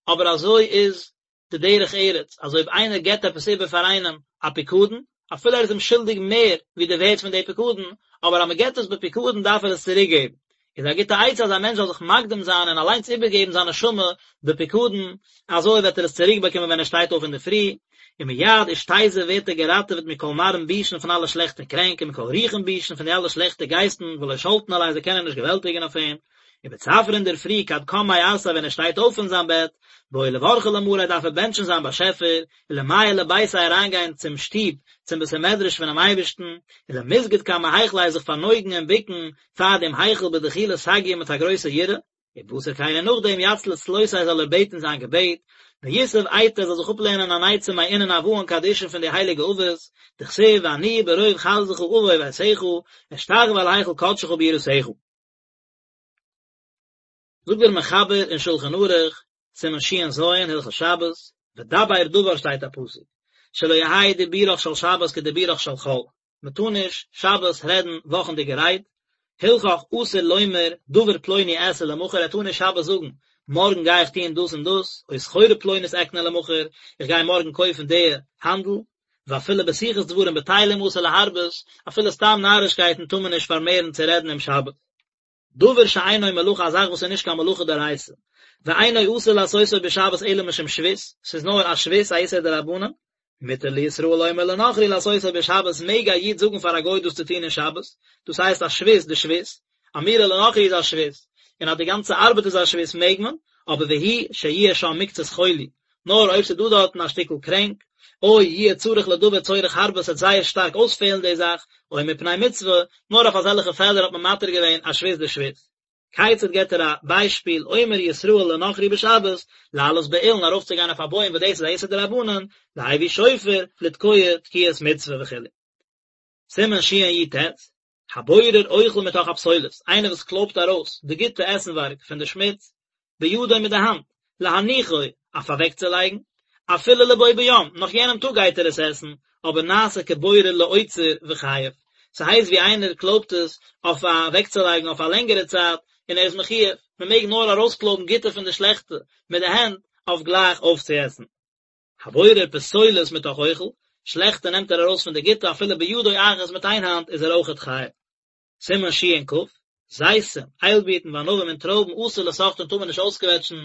Speaker 1: אבער אזוי איז די דרך ארץ, אז אויב איינער געבט עפעס איבער פאר איינעם א פיקדון, אפילו ער איז אים שולדיג מער ווי די ווערט פון די פיקדון, אבער אז מען געבט עס בפיקדון דארף ער עס צוריק געבן. איז א גוטע עצה אז א מענטש זאל זיך מקדים זיין און אליינס איבערגעבן זיין נשמה בפיקדון, אזוי וועט ער עס צוריק באקומען ווען ער שטייט אויף אינדערפרי, ומיד אשתזיב ווערט ער געראטעוועט מכל מרעין בישין פון אלע שלעכטע קרענק ומכל רוחין בישין פון די אלע שלעכטע גייסטן ולא שלטין עליה זיי קענען נישט געוועלטיגן אויף אים, ובצפרא אינדערפרי כד קם מערסיה ווען ער שטייט אויף פון זיין בעט, בעי לברכא למאריה דארף ער בענטשן זיין באשעפער, ולמיעל לביתיה אריינגיין צום שטוב, צום בית המדרש פונעם אייבערשטן, ולמסגד קמי היכלא זיך פארנויגן און בוקן פאר דעם היכל בדחילא סגיא מיט א גרויסע יראה, ובתר כן און נאכדעם יצלי צלותיה זאל ער בעטן זיין געבעט, ויתיב אייתא זאל זיך אפלערנען אן עצה מאינון אבהן קדישין פון די הייליגע אבות, דכתיב ואני ברוב חסדך אבוא ביתך, אשתחוה אל היכל קדשך ביראתך. זאגט דער מחבר אין שלחן ערוך, סימן ש"ז, הלכות שבת, ודבר דבר שטייט א פסוק, שלא יהא דיבורך של שבת כדיבורך של חול, מען טאר נישט שבת רעדן וואכנדיגע רייד, הלכך אסור לומר דבר פלוני אעשה למחר, ער טאר נישט שבת זאגן מארגן גיי איך טון דאס און דאס, או סחורה פלונית אקנה למחר, איך גיי מארגן קויפן די האנדל, ואפילו בשיחת דברים בטלים אסור להרבות, אפילו סתם נארישקייטן טאר מען נישט פארמערן צו רעדן אום שבת. דבר שאינו מלאכה א זאך וואס איז נישט קיין מלאכה דאורייתא, ואינו אסור לעשותו בשבת אלא משום שבות, ס'איז נאר א שבות א איסור דרבנן, מותר לישראל לומר לנכרי לעשותו בשבת מעג א איד זאגן פאר א גוי דאס צו טון אין שבת, דאס הייסט א שבות דשבות, אמירה לנכרי איז א שבות, און אז די גאנצע ארבעט איז א שבות מעג מען, אבער והוא שיהיה שם מקצת חולי, נאר אויב ס'איז דא דארטן א שטיקל קרענק, או יהיה צריך לדבר צורך הרבה ס'וועט זייער שטארק אויספעלן די זאך, או מפני מצוה, נאר אויף אזעלכע פעלער האט מען מתיר געווען א שבות דשבות. כיצד געבט ער א ביישפיל, אומר ישראל לנכרי בשבת, לעלות באילן ארויפצוגיין אויף א בוים וואס דאס איז א איסור דרבנן, להביא שופר, לתקוע תקיעת מצוה וכו'. סימן שי"ט, הבורר אוכל מתוך הפסולת, איינער וואס קלויבט ארויס די גוטע עסנווארג פון די שמוץ, בידו מיט די האנט, להניחו, אויף אוועקצולייגן, אפילו לבו ביום, נאך יענעם טאג גייט ער עס עסן, אבער נעשה כבורר לאוצר וחייב. ס'הייסט ווי איינער קלויבט עס אויף אוועקצולייגן אויף א לענגערע צייט, און ער איז מחויב, מ'מעג נאר ארויסקלויבן גוטע פון די שלעכטע מיט די הענט, אויף גלייך אויפצועסן. הבורר פסולת מתוך אוכל, שלעכטע נעמט ער ארויס פון די גוטע אפילו בידו אחת מיט איין האנט איז ער אויכעט חייב. סימן ש"כ, זיתים, איילבירטן וענבים און טרויבן אסור לסחטן טאר מען נישט אויסקוועטשן,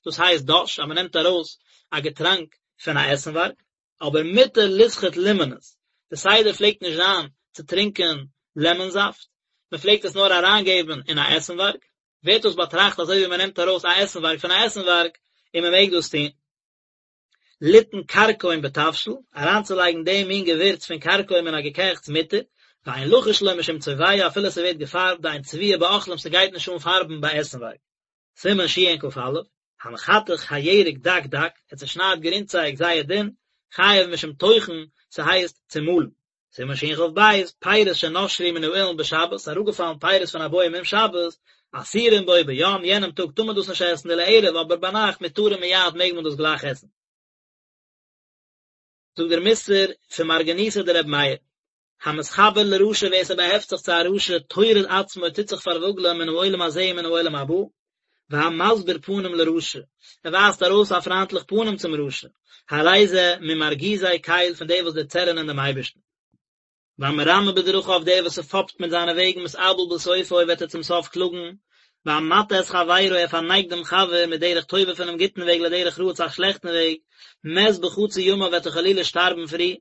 Speaker 1: דאס הייסט דש אז מען נעמט ארויס א געטראנק פון א עסנווארג, אבער מותר לסחוט לימונעס, די סדר פלעגט נישט זיין צו טרינקען לעמאן זאפט, מען פלעגט עס נאר אריינגעבן אין א עסנווארג, ווערט דאס באטראכט אזוי ווי מען נעמט ארויס א עסנווארג פון א עסנווארג און מען מעג דאס טון. ליתן כרכום בתבשיל, אריינצולייגן דעם מין געווירץ פון כרכום אין א געקעכטס מותר, ואין לחוש לו משום צובע אפילו ס'ווערט געפארבט דאין צביעה באוכלים ס'גייט נישט אן פארבן ביי עסנווארג. סימן שכ"א, המחתך הירק דק דק, ער צעשניידט גרינצייג זייער דין, חייב משום טוחן, ס'הייסט צומאלן. סימן שכ"ב, פירות שנשרו מן האילן בשבת, אראפגעפאלן פירות פון א בוים אום שבת, אסורים בו ביום, יענעם טאג טאר מען דאס נישט עסן, ולערב, אבער ביינאכט מותרים מיד מעג מען דאס גלייך עסן. זאגט דער מוסר פון מרגניתא דרבי מאיר, המתחבר לרשע ווער ס'באהעפט זיך צו א רשע טורד עצמו טוט זיך פארוואגלען מן העולם הזה ומן העולם הבא, והמסביר פנים לרשע, ער ווייזט ארויס א פריינטליך פנים צום רשע, הרי זה ממרגיזי קל פון די וואס דערצערענען דעם אייבערשטן. והמרמה בדרכיו דער וואס ס'פאפט מיט זיינע וועגן מתאבל בסופו וועט ער צום סוף קלאגן, והמטעה את חברו ער פארנייגט דעם חבר מדרך טובה פונעם גוטן וועג לדרך רעה צו א שלעכטן וועג, מת בחצי ימיו וועט ער חלילה שטארבן פרי,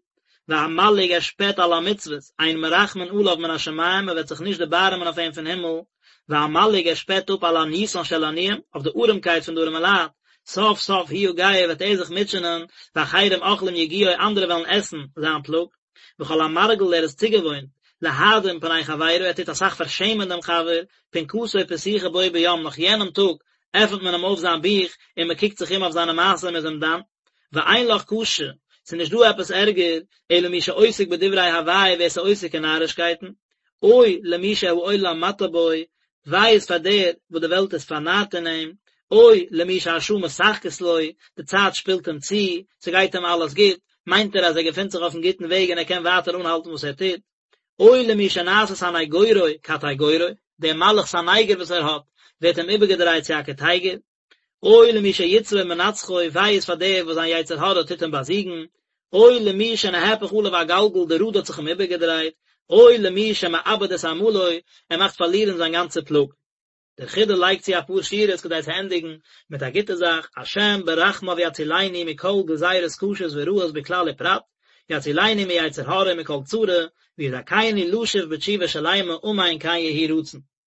Speaker 1: והמלעיג ער שפעט על המצוות, אין מרחמין עליו מן השמים, מען וועט זיך נישט דערבארעמען אויף אים פון הימל, והמלעיג ער שפעט אפ על עניותן של עניים, אויף די ארעמקייט פון די ארעמע לייט, סוף סוף הוא יגע וועט ער זיך מוטשענען, ואחרים אוכלים יגיעו אנדערע וועלן עסן זיין פלאג, וכל המרגיל ער איז צוגעוואוינט, להאדים פני חברו ער טוט אסאך פארשעמען דעם חבר, פנקסו פתוחה בו ביום נאך יענעם טאג עפנט מען אים אויף זיין בוך און מען קוקט זיך אום אויף זיינע מעשים און איז אים דן. ואין לך קשה, ס'איז נישט דא עפעס ערגער, אלא מי שעוסק בדברי הבאי ווער ס'איז עוסק אין נארישקייטן, אוי למי שהעולם מטעה בו, וויי איז פאר דער וואס די וועלט איז פארנארט אין אים, אוי למי שהשעה משחקת לו, די צייט שפילט אים צו, ס'גייט אים אלעס גוט, מיינט ער אז ער געפינט זיך אויפן גוטן וועג און ער קען ווייטער אנהאלטן וואס ער טוט. אוי למי שנעשה סניגורו קטיגורו, דער מלאך סניגור וואס ער האט, ווערט אים איבערגעדרייט צו א קטיגור. אוי למי שיצרו מנצחו, וויי איז פאר דער וואס זיין יצר הרע טוט אים באזיגן. אוי למי שנהפך עליו הגלגל, די ראד האט זיך אים איבערגעדרייט. אוי למי שמאבד את עמלו, ער מאכט פארלירן זיין גאנצע פלאג. דער חידא לייגט צו אפאר שורות כדי צו ענדיגן מיט א גוטע זאך, השם ברחמיו יצילנו מכל גזירות קשות ורעות בכלל ופרט, יצילנו מיצר הרע ומכל צרה, ויזכנו לשוב בתשובה שלימה אמן כן יהי רצון.